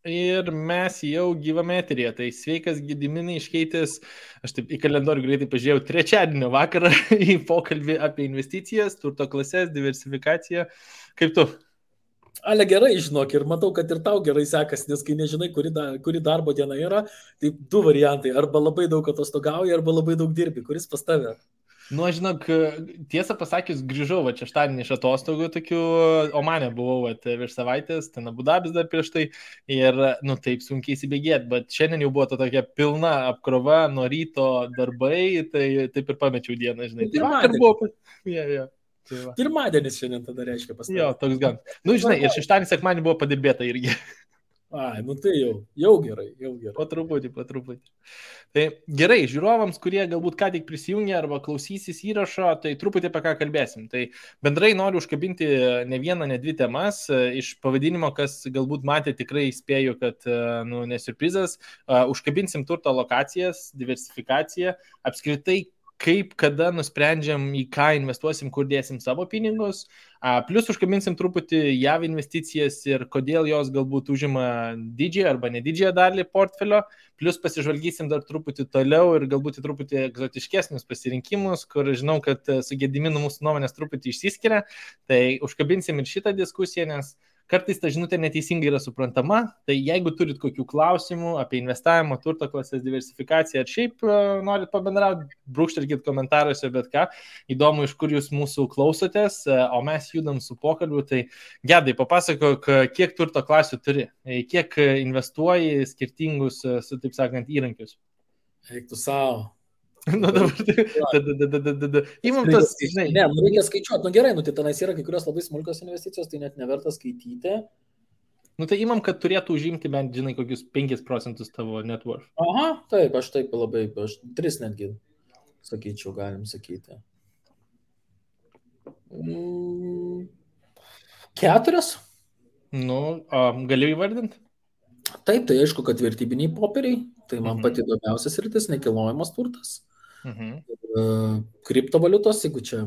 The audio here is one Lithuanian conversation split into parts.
Ir mes jau gyvame eteryje. Tai sveikas Gediminai iškeitęs, aš taip į kalendorių greitai pažiūrėjau, trečiadienio vakarą į pokalbį apie investicijas, turto klases, diversifikaciją. Kaip tu? Ale gerai, žinok, ir matau, kad ir tau gerai sekasi, nes kai nežinai, kuri darbo diena yra, tai du variantai. Arba labai daug atostogauji, arba labai daug dirbi. Kuris pas tave? Nu, aš žinok, tiesą pasakius, grįžau šeštadienį iš atostogų tokių, Omane buvau virš savaitės, ten Abu Dabis dar prieš tai ir, nu, taip sunkiai įsibėgėti, bet šiandien jau buvo ta tokia pilna apkrova, nuo ryto darbai, tai taip ir pamečiau dieną, žinai. Tai vakar buvo. Pirmadienis šiandien tada reiškia pas tave. Jo, toks gan. Nu, žinai, ir šeštadienį, sekmadienį buvo padirbėta irgi. Ai, nu tai jau gerai. Po truputį. Tai gerai, žiūrovams, kurie galbūt ką tik prisijungė arba klausysis įrašo, tai truputį apie ką kalbėsim. Tai bendrai noriu užkabinti ne vieną, ne dvi temas. Iš pavadinimo, kas galbūt matė, tikrai spėju, kad nesurprizas. Užkabinsim turto lokacijas, diversifikaciją, apskritai kaip, kada nusprendžiam, į ką investuosim, kur dėsim savo pinigus. Plus užkabinsim truputį JAV investicijas ir kodėl jos galbūt užima didžiąją arba nedidžiąją dalį portfelio. Plus pasižvalgysim dar truputį toliau ir galbūt truputį egzotiškesnius pasirinkimus, kur žinau, kad su Gediminu mūsų nuomonės truputį išsiskiria. Tai užkabinsim ir šitą diskusiją, nes kartais ta žinutė neteisingai yra suprantama, tai jeigu turit kokių klausimų apie investavimo, turto klasės diversifikaciją ar šiaip norit pabendrauti, brūkštelkit komentaruose, bet ką, įdomu, iš kur jūs mūsų klausotės, o mes judam su pokalbiu, tai Gedai, papasakok, kiek turto klasių turi, kiek investuoji skirtingus, taip sakant, įrankius. Eik tu savo. Nu dabar, įmam tas, žinai. Ne, reikia skaičiuoti, gerai, tai tenais yra kai kurios labai smulkios investicijos, tai net neverta skaityti. Tai įmam, kad turėtų užimti bent, žinai, kokius 5% tavo net worth. Aha, taip, aš taip labai, 3 netgi, sakyčiau, galim sakyti. 4? Galiu įvardinti? Taip, tai aišku, kad vertybiniai popieriai, tai man pati įdomiausias rytis, nekilnojamas turtas. Kriptovaliutos, jeigu čia...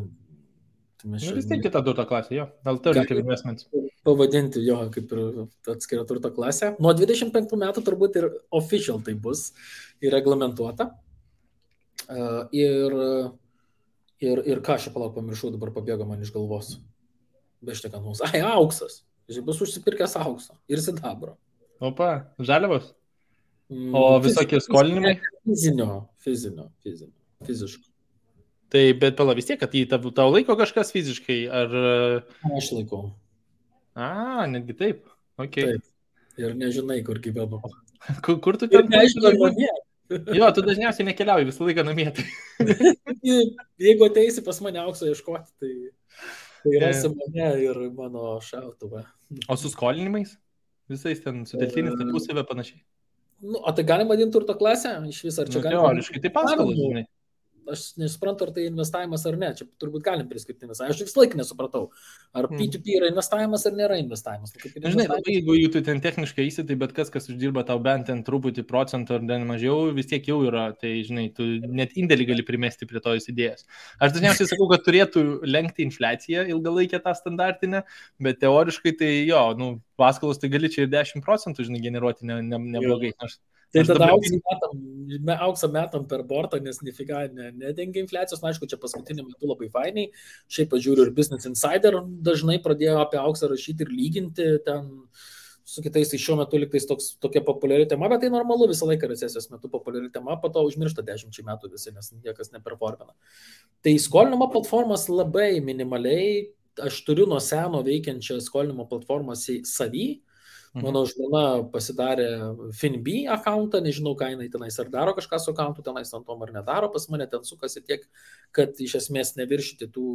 Vis tiek kita turto klasė, jo. Alternative investments. Pavadinti jo kaip ir atskirą turto klasę. Nuo 25 metų turbūt ir official tai bus ir reglamentuota. Ir ką aš palauk pamiršau, dabar pabėgo man iš galvos. Beštekant mums. Auksas. Bus užsipirkęs aukso ir sidabro. Opa, žaliavos? O visokie skolinimai? Fiziškai. Tai, bet pala vis tiek, kad jį tau laiko kažkas fiziškai, ar... Aš laikau. Netgi taip. Okay. Taip. Ir nežinai, kur gyvenu. Kur tu ten? Nežinai, namie. Jo, tu dažniausiai nekeliauji, visą laiką namie. Jeigu ateisi pas mane aukso ieškoti, tai rasi mane ir mano šautuvą. O su skolinimais? Visais ten suteltinis tarpusavę panašiai. Tai galim vadinti turto klasę? Iš viso, ar čia galim? Teoriškai, tai paskolas, žinai. Aš nesuprantu, ar tai investavimas ar ne. Čia turbūt galim priskirti investavimas. Aš visą laiką nesupratau, ar P2P yra investavimas ar nėra investavimas. Žinai, jeigu jų tu ten techniškai įsitai, bet kas uždirba tau bent ten truputį procentų ar ten mažiau, vis tiek jau yra. Tai, žinai, tu net indėlį gali primesti prie tos idėjos. Aš dažniausiai sakau, kad turėtų lenkti infliaciją ilgalaikę tą standartinę, bet teoriškai tai jo, paskolos tai gali čia ir 10%, žinai, generuoti neblogai. Tai tada auksą metam per bortą, nes nifiga nedengia infliacijos. Aišku, čia paskutiniu metu labai fainiai. Šiaip pažiūriu ir Business Insider dažnai pradėjo apie auksą rašyti ir lyginti ten su kitais. Tai šiuo metu liktais tokia populiari tema, bet tai normalu, visą laiką recesijos metu populiari tema, po to užmiršta 10 metų visi, nes niekas neperformina. Tai skolinimo platformos labai minimaliai. Aš turiu nuo seno veikiančią skolinimo platformą savy. Mano žmona pasidarė FinB akauntą, nežinau, ką jinai tenais ar daro kažką su akauntu, tenais ant tom ar nedaro, pas mane ten sukasi tiek, kad iš esmės neviršyti tų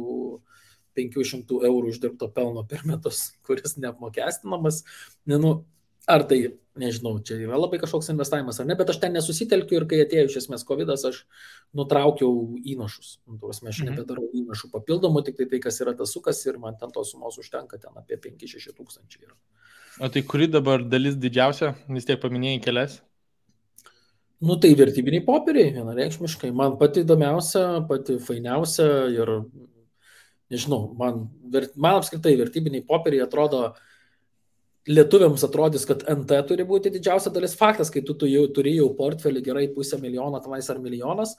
500 eurų uždirbto pelno per metus, kuris neapmokestinamas. Ar tai, nežinau, čia yra labai kažkoks investavimas ar ne, bet aš ten nesusitelkiu ir kai atėjo iš esmės COVID-as, aš nutraukiau įnašus. Aš nebedarau įnašų papildomų, tik tai kas yra tas sukas ir man ten tos sumos užtenka ten apie 5-6 tūkstančiai. O tai kuri dabar dalis didžiausia, vis tiek paminėjai kelias? Tai vertybiniai popieriai, vienareikšmiškai. Man pati įdomiausia, pati fainiausia ir, nežinau, man apskritai vertybiniai popieriai atrodo lietuviams atrodys, kad NT turi būti didžiausia dalis. Faktas, kai tu jau turi jau portfelį gerai $500,000 tenais ar milijonas,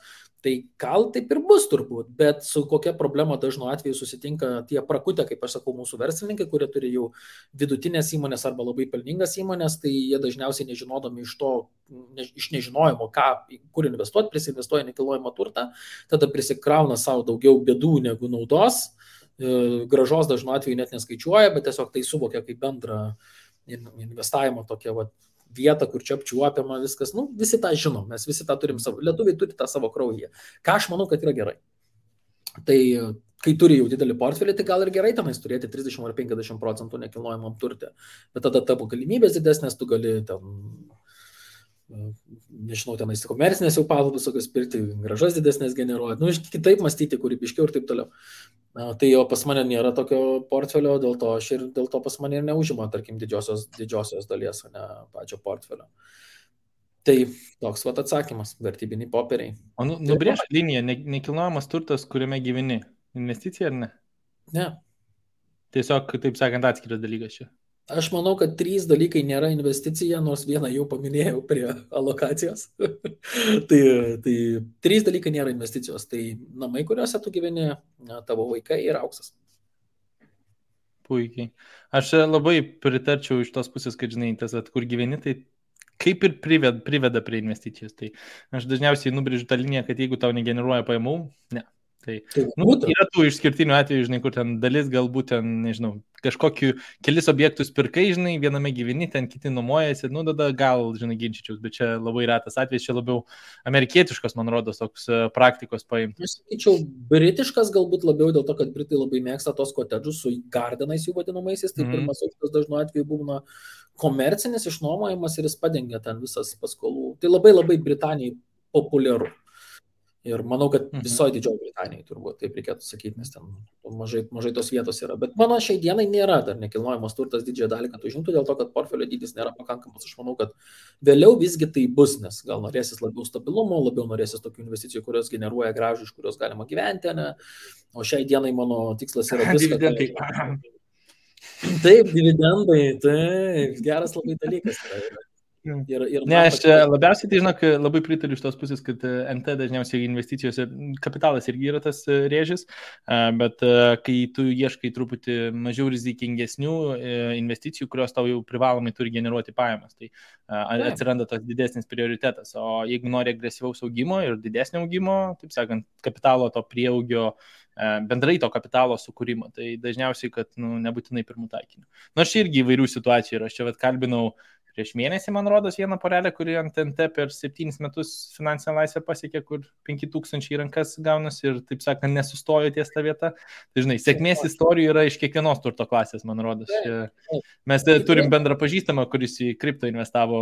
tai gal taip ir bus turbūt, bet su kokia problema dažnu atveju susitinka tie prakutę, kaip aš sakau, mūsų verslininkai, kurie turi jau vidutinės įmonės arba labai pelningas įmonės, tai jie dažniausiai nežinodami iš nežinojimo, kur investuoti, prisinvestuoja nekilnojamą turtą, tada prisikrauna savo daugiau bėdų negu naudos. Gražos dažnu atveju net neskaičiuoja, bet tiesiog tai suvokia kaip bendrą investavimo tokią vietą, kur čia apčiuopiama viskas. Visi tą žinom, mes visi tą turim savo, lietuviai turi tą savo kraujyje. Ką aš manau, kad yra gerai. Tai kai turi jau didelį portfelį, tai gal ir gerai tenais turėti 30 ar 50% nekilnojamam turtė. Bet tada tavo galimybės didesnės, tu gali nežinau, tenais komercinės jau pavaldas, tokios pirkti, gražas didesnės generuoti, kitaip mąstyti, kūrybiškiau ir taip toliau. Tai jo pas mane nėra tokio portfelio, dėl to pas mane ir neužima, tarkim, didžiosios dalies, o ne pačio portfelio. Tai toks atsakymas, vertybiniai popieriai. O nubrėžk liniją, nekilnojamas turtas, kuriame gyveni, investicija ar ne? Ne. Tiesiog, taip sakant, atskiras dalykas čia. Aš manau, kad 3 dalykai nėra investicija, nors vieną jau paminėjau prie alokacijos. tai 3 dalykai nėra investicijos. Tai namai, kuriuose tu gyveni, tavo vaikai ir auksas. Puikiai. Aš labai pritarčiau iš tos pusės, kad, žinai, tas, kur gyveni, tai kaip ir priveda prie investicijos. Tai aš dažniausiai nubrėžiu tą liniją, kad jeigu tau negeneruoja pajamų, ne. Tai yra tų išskirtinių atvejų, žinai, kur ten dalis galbūt ten, nežinau, kažkokiu kelis objektus pirkai, žinai, viename gyveni, ten kiti nuomojasi, tada gal, žinai, ginčyčiaus, bet čia labai retas atvejis, čia labiau amerikietiškas, man rodos, toks praktikos paimti. Aš sakyčiau, britiškas galbūt labiau dėl to, kad britai labai mėgsta tos kotedžus su gardenais jų vadinamaisiais, tai pirmas aukštas dažnu atveju būna komercinis išnuomojimas ir jis padengia ten visas paskolų. Tai labai labai Britanijai populiaru. Ir manau, kad visoje Didžioji Britanijai turbūt taip reikėtų sakyti, nes ten mažai tos vietos yra. Bet mano šiai dienai nėra dar nekilnojamas turtas didžiąją dalį, kad užimtų dėl to, kad portfelio dydis nėra pakankamas. Aš manau, kad vėliau visgi tai bus, nes gal norėsis labiau stabilumo, labiau norėsis tokių investicijų, kurios generuoja grąžą, iš kurios galima gyventi, ne? O šiai dienai mano tikslas yra viską. Taip, dividendai, taip, geras labai dalykas yra. Ne, aš labiausiai, tai žinok, labai pritariu iš tos pusės, kad NT dažniausiai investicijose kapitalas irgi yra tas rėžis, bet kai tu ieškai truputį mažiau rizikingesnių investicijų, kurios tau jau privalomai turi generuoti pajamas, tai atsiranda tas didesnis prioritetas. O jeigu nori agresyvaus augimo ir didesnio augimo, taip sakant, kapitalo to prieaugio, bendrai to kapitalo sukūrimo, tai dažniausiai, kad nebūtinai pirmų taikinių. Nors irgi įvairių situacijų yra. Aš čia kalbinau prieš mėnesį, man rodos, vieną porelę, kuri ant NT per 7 metus finansinę laisvę pasiekė, kur 5,000 į rankas gaunasi ir, taip sakant, nesustojo ties tą vietą. Tai, žinai, sėkmės istorijų yra iš kiekvienos turto klasės, man rodos. Mes turim bendrą pažįstamą, kuris į kripto investavo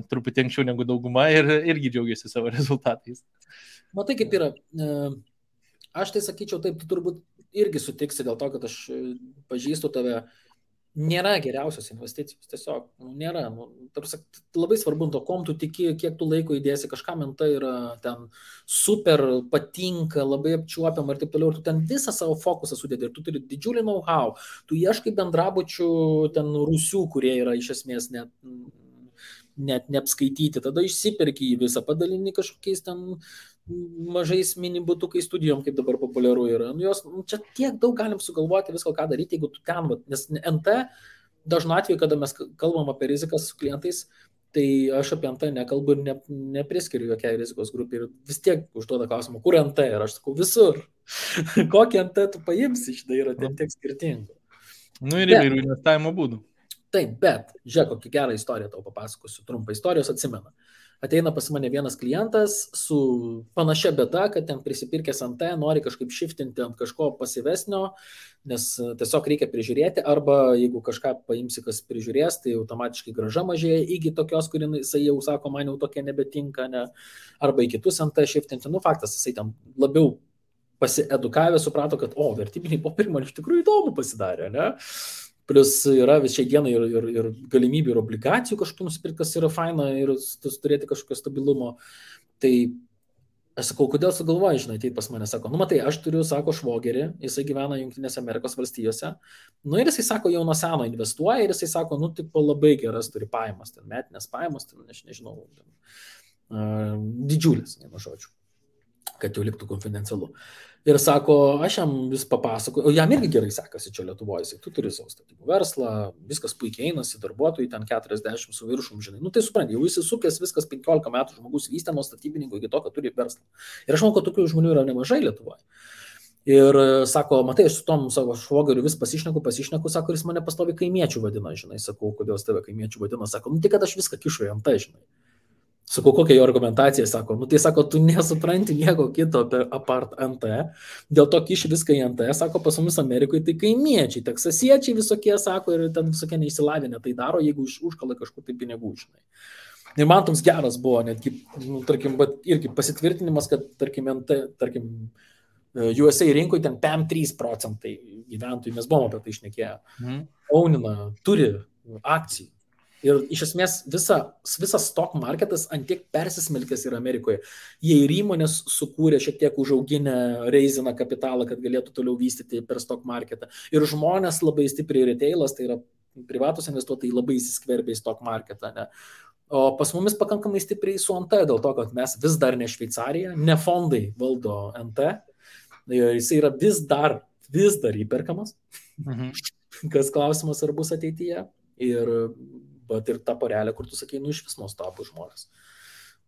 truputį anksčiau negu dauguma ir irgi džiaugiasi savo rezultatais. Matai, kaip yra. Aš tai sakyčiau, taip, tu turbūt irgi sutiksi dėl to, kad aš pažįstu tave. Nėra geriausios investicijos, tiesiog nėra. Labai svarbu, to kom tu tiki, kiek tu laiko įdėsi, kažkam NT yra ten super patinka, labai apčiuopiam ir taip toliau, ir tu ten visą savo fokusą sudėdi ir tu turi didžiulį know-how, tu ieškai bendrabučių ten rūsių, kurie yra iš esmės net neapskaityti, tada išsiperki į visą, padalini kažkokiais ten mažais minibutukai studijom, kaip dabar populiaru yra. Čia tiek daug galim sugalvoti visko, ką daryti, jeigu tu ten, nes NT dažnu atveju, kada mes kalbam apie rizikas su klientais, tai aš apie NT nekalbu ir nepriskiriu jokiai rizikos grupį ir vis tiek užduoda klausimą, kur NT ir aš sakau visur. Kokį NT tu paimsi, štai yra tiek skirtingų. Ir įvairių investavimo būdų. Taip, bet žiūrėk, kokią gerą istoriją tau papasakosiu, trumpą istorijos atsimena. Ateina pas mane vienas klientas su panašia bėda, kad ten prisipirkęs NT, nori kažkaip shiftinti ant kažko pasyvesnio, nes tiesiog reikia prižiūrėti, arba jeigu kažką paimsi, kas prižiūrės, tai automatiškai grąža mažėja iki tokios, kur jisai jau sako, man jau tokia nebetinka, ne? Arba į kitus NT shiftinti. Faktas, jisai ten labiau pasiedukavę suprato, kad vertybiniai popieriai man iš tikrųjų įdomu pasidarė, ne? Plius yra šiai dienai ir galimybių ir obligacijų kažkokių nusipirkti, kas yra faina ir turėti kažkokio stabilumo. Tai Aš sakau, kodėl sugalvoji, žinai, ateit pas mane, sako, nu matai, aš turiu, sako, švogerį, jisai gyvena Junktinėse Amerikos valstijose, nu ir jisai sako, jau nuo seno investuoja ir jisai sako, nu tipo labai geras turi pajamas, ten metinės pajamas, ten, aš nežinau, didžiulės, vienu žodžiu, kad jau liktų konfidencialu. Ir sako, aš jam vis papasakoju, o jam irgi gerai sekasi čia Lietuvoje, jisai, tu turi savo statybų verslą, viskas puikiai einasi, darbuotojai ten 40 su viršum, žinai, nu tai supranti, jau įsisukęs viskas 15 metų žmogus vystė nuo statybininkų iki to, kad turi verslą. Ir aš manau, kad tokių žmonių yra nemažai Lietuvoje. Ir sako, matai, aš su tom savo švogeriu vis pasišneku, sako, ir jis mane pastovi kaimiečių vadina, žinai, sakau, kodėl jis tave kaimiečių vadina, sako, nu tai kad aš viską kišu į ant, žinai. Sakau, kokia jo argumentacija, sako, nu tai sako, tu nesupranti nieko kito apie apart NT, dėl to kiši viską į NT, sako, pas mumis Amerikoje tai kaimiečiai, teksasiečiai visokie, sako, ir ten visokie neįsilavinę tai daro, jeigu užkala kažkur tai pinigų, žinai. Ir man toks geras buvo, netgi, nu, tarkim, irgi pasitvirtinimas, kad, tarkim, NT, tarkim, USA rinkoje ten 5-3% gyventojų, mes buvom apie tai šnekėję, ownina, turi akcijų. Ir iš esmės visas stock marketas antiek persismelkęs yra Amerikoje. Jie ir įmonės sukūrė šiek tiek užauginę reiziną kapitalą, kad galėtų toliau vystyti per stock marketą. Ir žmonės labai stipriai retailas, tai yra privatus investuotojai, labai įsiskverbė į stock marketą. Ne? O pas mumis pakankamai stipriai su NT, dėl to, kad mes vis dar ne Šveicarija, ne fondai valdo NT. Jis yra vis dar įperkamas. Kas klausimas, ar bus ateityje. Ir ta porelė, kur tu sakai, nu iš vis nuostabų žmonės.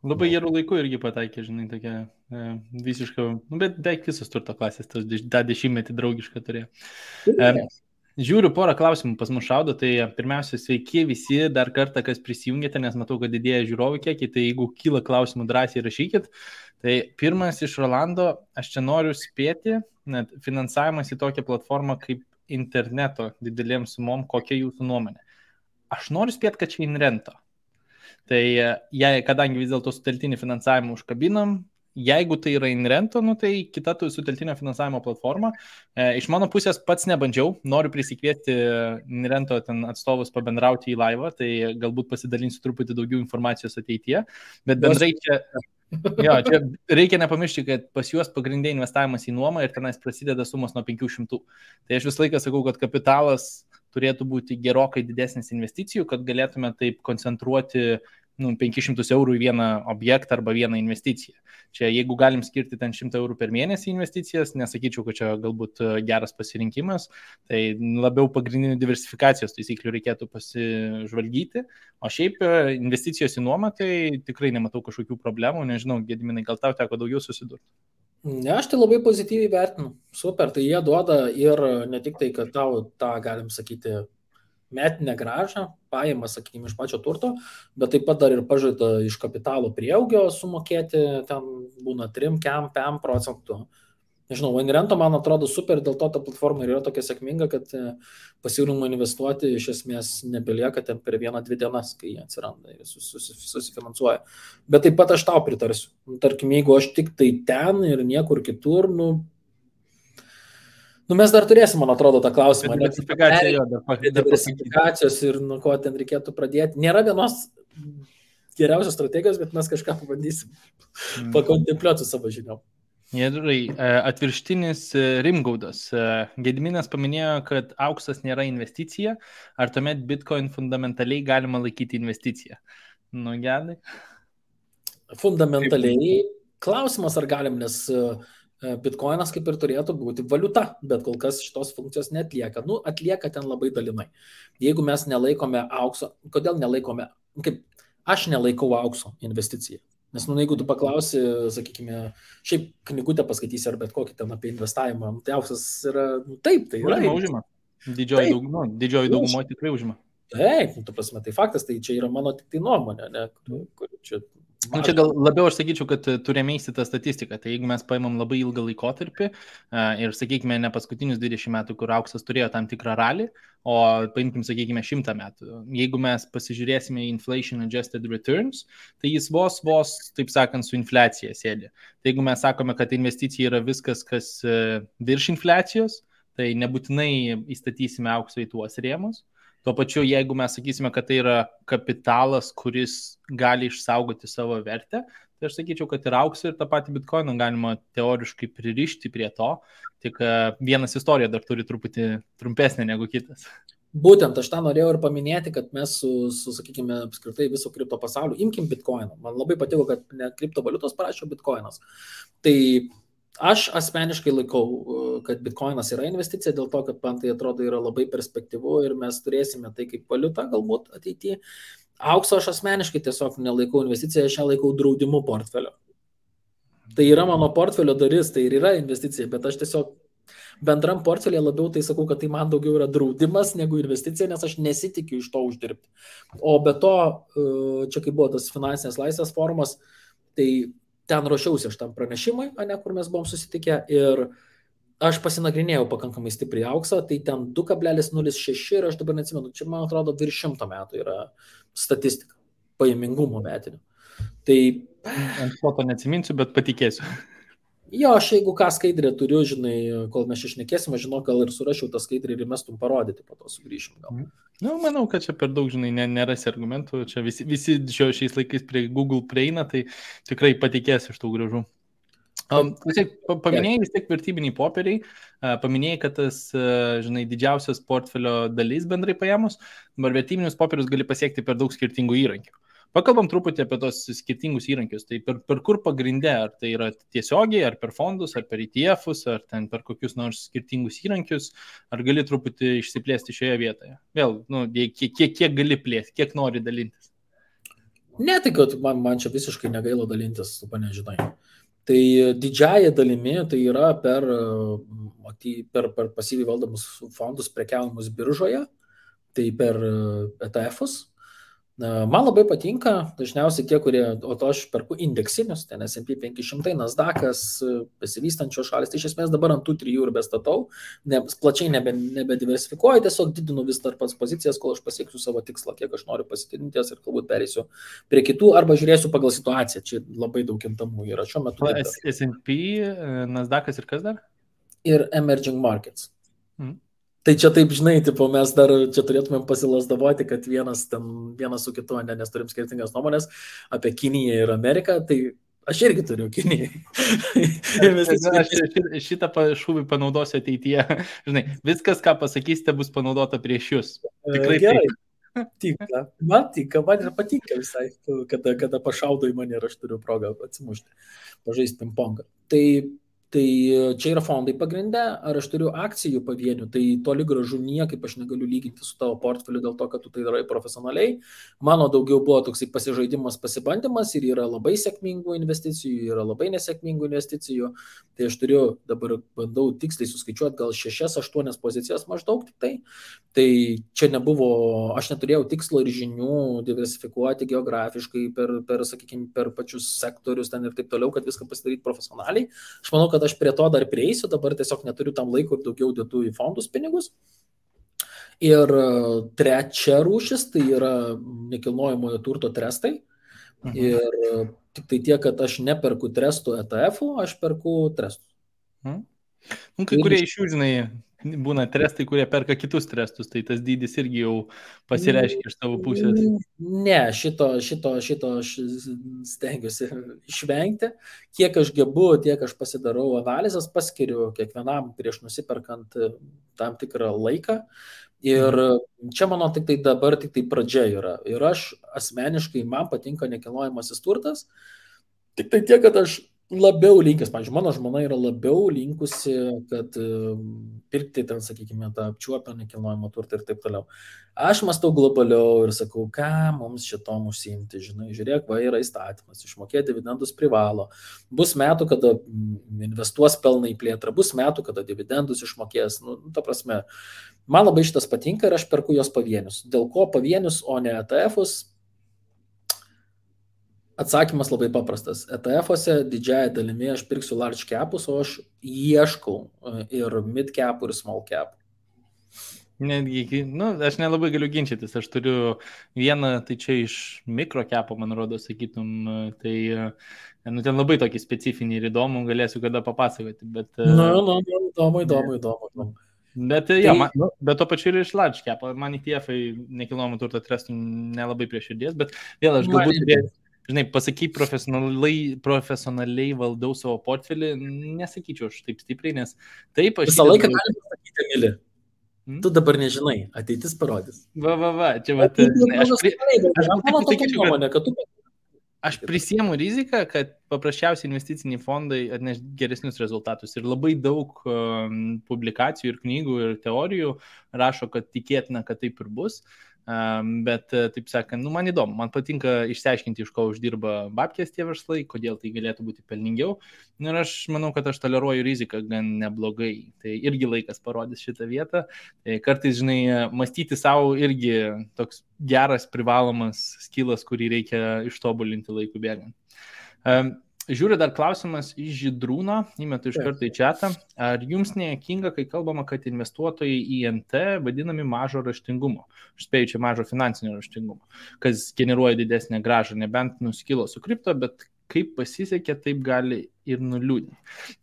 Labai gerų laikų irgi pataikė, žinai, tokia visiškai, nu, bet beveik visos turto klasės, tą 10-metį draugišką turėjo. Žiūriu, porą klausimų pas mus šaudo, tai pirmiausia, sveiki visi, dar kartą, kas prisijungėte, nes matau, kad didėja žiūrovų kiekiai, tai jeigu kyla klausimų, drąsiai rašykit. Tai pirmas iš Rolando, aš čia noriu spėti, net finansavimas į tokią platformą kaip interneto didelėm sumom, kokia jūsų nuomonė? Aš noriu spėti, kad čia InRento. Tai kadangi vis dėlto suteltinį finansavimą užkabinam, jeigu tai yra InRento, nu, tai kita suteltinio finansavimo platforma. Iš mano pusės pats nebandžiau, noriu prisikviesti InRento atstovus pabendrauti į laivą, tai galbūt pasidalinsiu truputį daugiau informacijos ateityje, bet bendrai čia reikia nepamiršti, kad pas juos pagrindė investavimas į nuomą ir tenais prasideda sumos nuo 500. Tai aš visą laiką sakau, kad kapitalas turėtų būti gerokai didesnis investicijų, kad galėtume taip koncentruoti 500 eurų į vieną objektą arba vieną investiciją. Čia jeigu galim skirti ten 100 eurų per mėnesį investicijas, nesakyčiau, kad čia galbūt geras pasirinkimas, tai labiau pagrindinių diversifikacijos taisyklių reikėtų pasižvalgyti, o šiaip investicijos į nuomą, tai tikrai nematau kažkokių problemų, nežinau, Gediminai, gal tau teko daugiau susidurti? Ne, aš tai labai pozityviai vertinu. Super, tai jie duoda ir ne tik tai, kad tau tą, galim sakyti, metinę gražą, pajamas, sakykime, iš pačio turto, bet taip pat dar ir pažada iš kapitalo prieaugio sumokėti, ten būna 3-5%. Nežinau, InRento man atrodo super, dėl to ta platforma yra tokia sėkminga, kad pasiūlymų investuoti iš esmės nebelieka ten per 1-2 dienas, kai jie atsiranda ir susifinansuoja. Bet taip pat aš tau pritarsiu. Tarkim, jeigu aš tik tai ten ir niekur kitur, mes dar turėsim, man atrodo, tą klausimą. Diversifikacijos ir nuo ko ten reikėtų pradėti. Nėra vienos geriausios strategijos, bet mes kažką pabandysim pakontempliuoti su savo žiniom. Gerai, atvirštinis Rimgaudas. Gediminas paminėjo, kad auksas nėra investicija. Ar tuomet Bitcoin fundamentaliai galima laikyti investiciją? Nu, Gedai. Fundamentaliai klausimas, ar galim, nes Bitcoinas kaip ir turėtų būti valiuta, bet kol kas šitos funkcijos neatlieka. Atlieka ten labai dalinai. Jeigu mes nelaikome aukso, kodėl nelaikome, kaip aš nelaikau aukso investiciją. Nes, jeigu tu paklausi, sakykime, šiaip knygutę paskaitysi ar bet kokį ten apie investavimą, tai auksas yra, taip, tai yra. Užima. Didžioji daugumo tikrai užima. Taip, tu prasme, tai faktas, tai čia yra mano tik tai nuomonė, ne, kur čia... Čia gal labiau aš sakyčiau, kad turime įsitą statistiką. Tai jeigu mes paimam labai ilgą laikotarpį ir, sakykime, ne paskutinius 20 metų, kur auksas turėjo tam tikrą ralį, o paimkim, sakykime, 100 metų. Jeigu mes pasižiūrėsime į inflation adjusted returns, tai jis vos, taip sakant, su infliacija sėdi. Tai jeigu mes sakome, kad investicija yra viskas, kas virš infliacijos, tai nebūtinai įstatysime aukso į tuos rėmus. Tuo pačiu, jeigu mes sakysime, kad tai yra kapitalas, kuris gali išsaugoti savo vertę, tai aš sakyčiau, kad ir auksą, ir tą patį bitkoiną galima teoriškai pririšti prie to, tik vienas istorija dar turi truputį trumpesnė negu kitas. Būtent aš tą norėjau ir paminėti, kad mes sakykime, apskritai viso kripto pasaulio, imkim bitkoiną. Man labai patiko, kad ne kriptovaliutos parašė bitkoinas. Tai aš asmeniškai laikau, kad bitkoinas yra investicija, dėl to, kad man tai atrodo yra labai perspektyvu ir mes turėsime tai kaip valiuta galbūt ateityje. Aukso aš asmeniškai tiesiog nelaikau investiciją, aš ją laikau draudimu portfelio. Tai yra mano portfelio dalis, tai ir yra investicija, bet aš tiesiog bendram portfelė labiau tai sakau, kad tai man daugiau yra draudimas negu investicija, nes aš nesitikiu iš to uždirbti. O be to, čia kai buvo tas finansinės laisvės forumas, tai ten ruošiausi aš tam pranešimui, kur mes buvom susitikę ir aš pasinagrinėjau pakankamai stipriai auksą, tai ten 2,06 ir aš dabar neatsimenu, čia man atrodo virš 100 metų yra statistika, pajamingumo metinių. Tai ant foto neatsiminsiu, bet patikėsiu. Jo, aš jeigu ką skaidrę turiu, žinai, kol mes išnekėsime, žinau, gal ir surašiau tą skaidrę ir mestum parodyti, po to sugrįšim gal. Nu, manau, kad čia per daug, žinai, nerasi argumentų, čia visi šiais laikais prie Google prieina, tai tikrai patikės iš tų gražų. Paminėjai vis tiek vertybiniai popieriai, paminėjai, kad tas, žinai, didžiausias portfelio dalis bendrai paėmus, dabar vertybinius popierius gali pasiekti per daug skirtingų įrankių. Pakalbam truputį apie tos skirtingus įrankius, tai per kur pagrindė, ar tai yra tiesiogiai, ar per fondus, ar per ETF-us, ar ten per kokius nors skirtingus įrankius, ar gali truputį išsiplėsti šioje vietoje? Vėl, kiek gali plėsti, kiek nori dalintis? Ne, tai kad man čia visiškai negaila dalintis, tu nežinai. Tai didžiąją dalimi tai yra per pasyviai valdomus fondus prekiavimus biržoje, tai per ETF-us. Man labai patinka, dažniausiai tie, kurie, o to aš perku indeksinius, ten S&P 500, Nasdaq'as, besivystančios šalis, tai iš esmės dabar ant tų 3 ir bestatau, plačiai nebediversifikuoju, tiesiog didinu vis dar pats pozicijas, kol aš pasieksiu savo tikslą, kiek aš noriu pasitidinties ir galbūt pereisiu prie kitų, arba žiūrėsiu pagal situaciją, čia labai daug kintamų yra šiuo metu. S&P, Nasdaq'as ir kas dar? Ir Emerging Markets. Tai čia taip, žinai, tipo, mes dar čia turėtumėm pasilasdavoti, kad vienas su kitu, nes turim skirtingas nuomonės apie Kiniją ir Ameriką, tai aš irgi turiu Kinijai. Aš šitą šūvį panaudosiu ateityje. Žinai, viskas, ką pasakysite, bus panaudota prieš jūs. Tikrai gerai. Man ir patinka visai, kada pašaudo į mane ir aš turiu progą atsimušti, pažaisti pingpongą. Tai čia yra fondai pagrindę, ar aš turiu akcijų pavienių, tai toli gražu niekaip aš negaliu lyginti su tavo portfeliu dėl to, kad tu tai darai profesionaliai. Mano daugiau buvo toksai pasižaidimas, pasibandymas ir yra labai sėkmingų investicijų, yra labai nesėkmingų investicijų. Tai aš dabar bandau tiksliai suskaičiuoti gal 6-8 pozicijas maždaug tik tai. Tai čia aš neturėjau tikslo ir žinių diversifikuoti geografiškai per pačius sektorius ten ir taip toliau, kad viską pasidaryti profesionaliai. Aš manau, kad aš prie to dar prieisiu, dabar tiesiog neturiu tam laiko ir daugiau dėtų į fondus pinigus. Ir trečia rūšis, tai yra nekilnojamojo turto trestai. Ir tik tai tiek, kad aš neperku trestų ETF-ų, aš perku trestus. Kai kurie iš jų, žinai, būna trestai, kurie perka kitus trestus, tai tas dydis irgi jau pasireiškia iš tavo pusės. Ne, šito aš stengiuosi išvengti. Kiek aš gebu, tiek aš pasidarau analizės, paskiriu kiekvienam prieš nusiperkant tam tikrą laiką. Ir čia mano dabar tik tai pradžia yra. Ir aš asmeniškai, man patinka nekilnojamasis turtas, tik tai tiek, kad aš labiau linkęs, pavyzdžiui, mano žmona yra labiau linkusi, kad pirkti ten, sakykime, tą apčiuopę nekilnojamą turtą ir taip toliau. Aš mąstau globaliau ir sakau, ką mums šitom užsiimti, žinai, žiūrėk, yra įstatymas, išmokėti dividendus privalo. Bus metų, kada investuos pelną į plėtrą, bus metų, kada dividendus išmokės. Ta prasme, man labai šitas patinka ir aš perku jos pavienius. Dėl ko pavienius, o ne ETF-us? Atsakymas labai paprastas. ETF-ose didžiąją dalimi aš pirksiu large capus, o aš ieškau ir mid capų, ir small capų. Netgi, aš nelabai galiu ginčytis. Aš turiu vieną, tai čia iš mikro capų, man rodo, sakytum, tai ten labai tokį specifinį ir įdomų, galėsiu kada papasakoti. Bet, įdomu. Bet, bet to pačiu ir iš large capų. Man ETF-ai nekilnojamo turto trestų nelabai prie širdies, bet vėl aš galbūt žinai, pasakai profesionaliai valdau savo portfelį, nesakyčiau aš taip stipriai, nes taip aš... Visą laiką galima pasakyti, Emili. Tu dabar nežinai, ateitis parodys. Va, čia va, aš prisiemu riziką, kad paprasčiausiai investiciniai fondai atneš geresnius rezultatus. Ir labai daug publikacijų ir knygų ir teorijų rašo, kad tikėtina, kad taip ir bus. Bet, taip sakant, man įdomu, man patinka išsiaiškinti, iš ko uždirba babkės tie verslai, kodėl tai galėtų būti pelningiau. Ir aš manau, kad aš toleruoju riziką gan neblogai. Tai irgi laikas parodys šitą vietą. Tai kartais, žinai, mąstyti savo irgi toks geras, privalomas skilas, kurį reikia ištobulinti laikų bėgant. Žiūriu dar klausimas iš Žydrūno, įmetu iš karto į chatą. Ar jums nejuokinga, kai kalbama, kad investuotojai į NT vadinami mažo raštingumo? Aš spėju, čia mažo finansinio raštingumo, kas generuoja didesnę grąžą, nebent nuskilo su kripto, bet kaip pasisekė, taip gali ir nuliūdinti.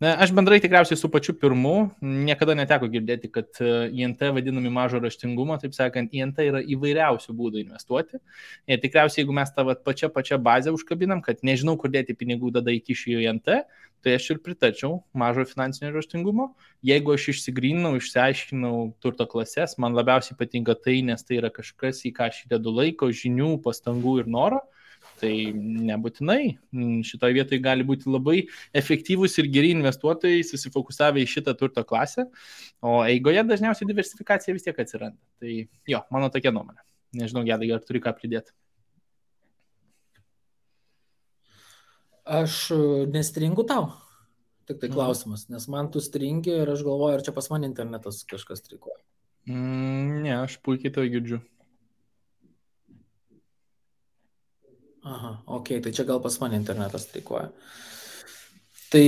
Aš bendrai tikriausiai su pačiu pirmu niekada neteko girdėti, kad INT vadinami mažo raštingumo, taip sakant, INT yra įvairiausių būdų investuoti. Ir tikriausiai, jeigu mes tą pačią bazę užkabinam, kad nežinau, kur dėti pinigų, tada įkišiu į INT, tai aš ir pritarčiau mažo finansinio raštingumo. Jeigu aš išsigryninau, išsiaiškinau turto klases, man labiausiai patinka tai, nes tai yra kažkas, į ką aš įdedu laiko, žinių, pastangų ir noro. Tai nebūtinai. Šitoje vietoje gali būti labai efektyvūs ir geri investuotojai susifokusavę į šitą turto klasę, o eigoje dažniausiai diversifikacija vis tiek atsiranda. Tai jo, mano tokia nuomonė. Nežinau, Gedai, ar turi ką pridėti? Aš nestringu tau. Tik tai klausimas, nes man tu stringi ir aš galvoju, ar čia pas man internetas kažkas strikuoja. Ne, aš puikiai to girdžiu. Aha, ok, tai čia gal pas mane internetas streikuoja. Tai,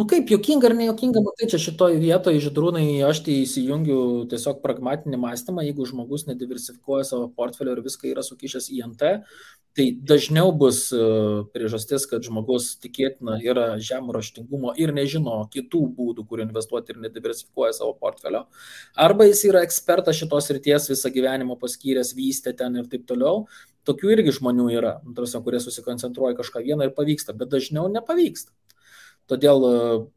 kaip, juokinga ar nejuokinga, matai, čia šitoj vietoje, Žydrūnai, aš tai įsijungiu tiesiog pragmatinį mąstymą, jeigu žmogus nediversifikuoja savo portfelio ir viską yra sukišęs į NT, tai dažniau bus priežastis, kad žmogus tikėtina yra žemų raštingumo ir nežino kitų būdų, kur investuoti ir nediversifikuoja savo portfelio. Arba jis yra ekspertas šitos srities, visą gyvenimą paskyręs, vystė ten ir taip toliau. Tokių irgi žmonių yra, kurie susikoncentruoja kažką vieną ir pavyksta, bet dažniau nepavyksta. Todėl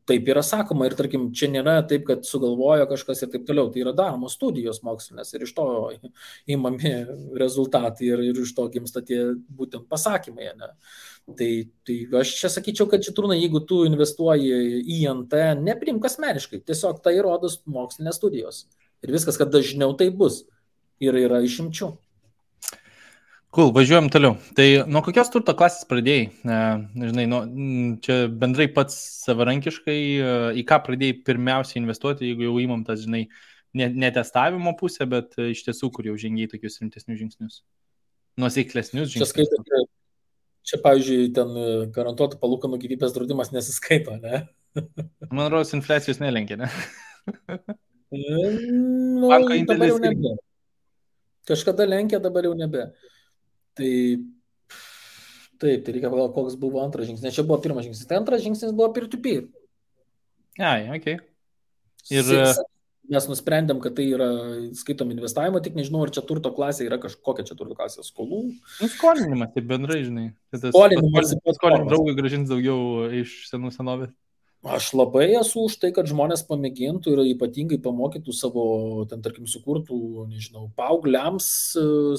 taip yra sakoma ir, tarkim, čia nėra taip, kad sugalvojo kažkas ir taip toliau. Tai yra daromos studijos mokslinės ir iš to įmami rezultatai ir iš to gimsta tie būtent pasakymai. Ne? Tai aš čia sakyčiau, kad Žydrūnai, jeigu tu investuoji į NT, neprimk asmeniškai, tiesiog tai rodos mokslinės studijos. Ir viskas, kad dažniau tai bus. Ir yra išimčių. Cool, važiuojam toliau. Tai nuo kokios turto klasės pradėjai? Žinai, čia bendrai pats savarankiškai, į ką pradėjai pirmiausiai investuoti, jeigu jau įmam tas, žinai, ne testavimo pusę, bet iš tiesų, kur jau žengiai tokius rimtesnius žingsnius. Nuosaiklesnius žingsnius. Čia, pavyzdžiui, ten garantuotų palūkanų gyvybės draudimas nesiskaito, ne? Man rodos, infliacijos nelenkia, ne? Banko indėlis nebe. Kažkada lenkia, dabar jau nebe. Tai reikia pagalvoti, koks buvo antras žingsnis. Nes čia buvo pirmas žingsnis. Tai antras žingsnis buvo peer-to-peer. Okay. Ir mes nusprendėm, kad tai yra skaitom investavimo, tik nežinau, ar čia turto klasė yra kažkokia čia turto klasė skolų. Skolinimas, tai bendrai, žinai. Skolinimas. Draugui grąžins daugiau iš senų senovės. Aš labai esu už tai, kad žmonės pamėgintų ir ypatingai pamokytų savo, ten, tarkim, sukurtų, nežinau, paaugliams,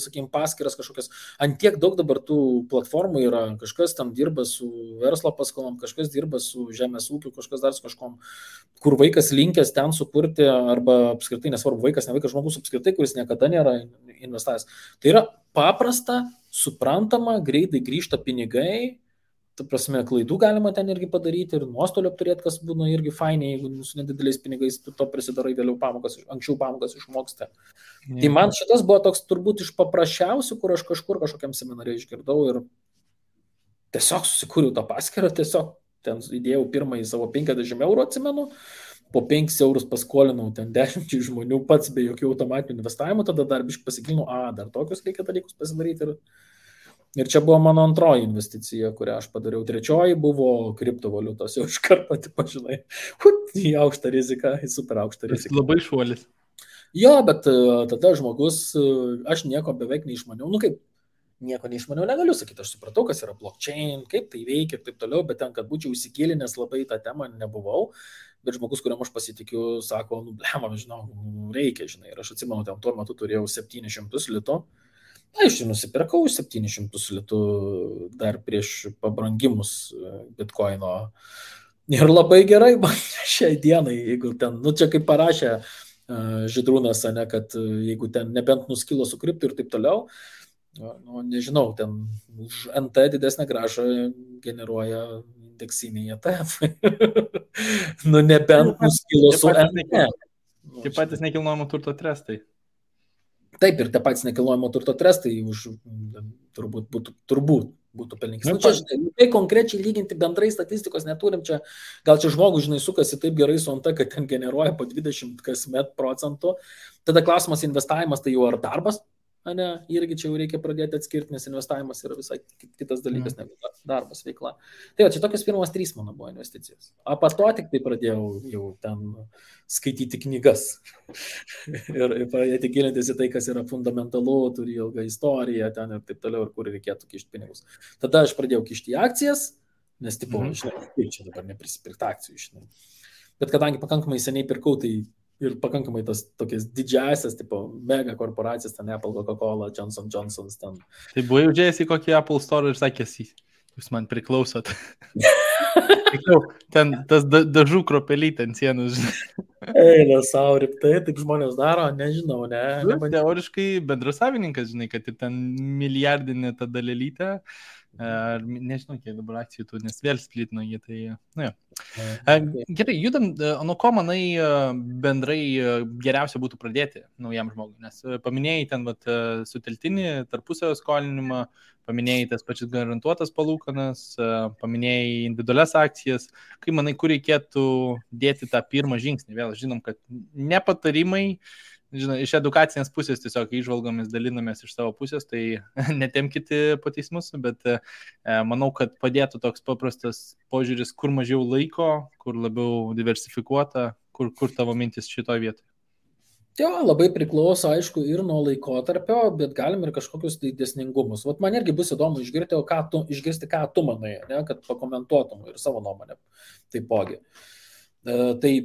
sakykim, paskyras kažkokias. Antiek daug dabar tų platformų yra, kažkas ten dirba su verslo paskolom, kažkas dirba su žemės ūkiu, kažkas dar su kažkom, kur vaikas linkęs ten sukurti, arba apskritai, nesvarbu, vaikas, ne vaikas, žmogus apskritai, kuris niekada nėra investavęs. Tai yra paprasta, suprantama, greitai grįžta pinigai. Ta prasme, klaidų galima ten irgi padaryti ir nuostolių apturėti, kas būna irgi fainiai, jeigu su nedideliais pinigais tu to prisidarai vėliau anksčiau pamokas išmoksti. Tai man šitas buvo toks turbūt iš paprasčiausių, kur aš kažkokiam seminare išgirdau ir tiesiog susikūriau tą paskyrą, tiesiog ten įdėjau pirmąjį savo 50 eurų, atsimenu, po 5 eurus paskolinau ten 10 žmonių pats be jokių automatinių investavimų, tada dar biškai pasigilinau, dar tokius reikia dalykus pasidaryti. Ir čia buvo mano antroji investicija, kurią aš padariau. Trečioji buvo kriptovaliutos, jau iš karto, pažinai, į aukštą riziką, į super aukštą riziką. Labai šuolis. Jo, bet tada žmogus, aš nieko beveik neišmaniau. Kaip, nieko neišmaniau negaliu sakyti, aš supratau, kas yra blockchain, kaip tai veikia ir taip toliau, bet ten, kad būčiau įsigilinęs labai tą temą, nebuvau. Bet žmogus, kuriam aš pasitikiu, sako, blema, žinau, reikia, žinai. Ir aš atsimenu, ten tuo metu turėjau 700 litų. Na, iš jų nusipirkau 700 litų dar prieš pabrangimus bitkoino. Ir labai gerai, man šiai dienai, jeigu ten, čia kaip parašė Žydrūnas, ne, kad jeigu ten nebent nuskilo su kriptu ir taip toliau, nežinau, ten už NT didesnę gražą generuoja indeksiniai ETF. Nebent nuskilo su NT. Taip patys nekilnojamo turto trestai. Taip, ir tie patys nekilnojamo turto trestai turbūt būtų pelningas. Čia, žinai, tai konkrečiai lyginti bendrai statistikos neturim, gal čia žmogus, žinai, sukasi taip gerai su NT, kad ten generuoja po 20 kasmet procentų. Tada klausimas investavimas, tai jau ar darbas? Ne, irgi čia jau reikia pradėti atskirti, nes investavimas yra visai kitas dalykas, negu darbas veikla. Tai čia tokios pirmos 3 mano buvo investicijos. O po to tik tai pradėjau jau ten skaityti knygas ir pradėti gilintis į tai, kas yra fundamentalu, turi ilgą istoriją ten ir taip toliau, ir kur reikėtų kišti pinigus. Tada aš pradėjau kišti į akcijas, nes tipo, žinai, čia dabar neprisipirkti akcijų, žinai. Bet kadangi pakankamai seniai pirkau, tai ir pakankamai tas tokias didžiasias, tipo, mega korporacijas, ten Apple, Coca-Cola, Johnson & Johnson's, ten. Tai buvai užėjęs į kokį Apple Store ir sakęs, jūs man priklausot. Ten tas dažų kropelytė ant sienos. Eilė, sau rimtai, taip žmonės daro, nežinau, ne. Teoriškai bendrasavininkas, žinai, kad ir ten milijardinė ta dalelytė. Nežinau, kiek dabar akcijų tu, nes vėl splitino jį, tai, nu jo. Gerai, judam, nuo ko manai bendrai geriausia būtų pradėti naujam žmogui, nes paminėjai ten suteltinį tarpusavio skolinimą, paminėjai tas pačias garantuotas palūkanas, paminėjai individualias akcijas, kai manai, kur reikėtų dėti tą pirmą žingsnį, vėl žinom, kad nepatarimai, žinai, iš edukacinės pusės tiesiog įžvalgomis dalinamės iš savo pusės, tai netemkite po teismus, bet manau, kad padėtų toks paprastas požiūris, kur mažiau laiko, kur labiau diversifikuota, kur tavo mintis šitoj vietoje. Jo, labai priklauso, aišku, ir nuo laikotarpio, bet galim ir kažkokius tai dėsningumus. Vat man irgi bus įdomu išgirsti, ką tu manai, ne, kad pakomentuotum ir savo nuomonę taipogi. Tai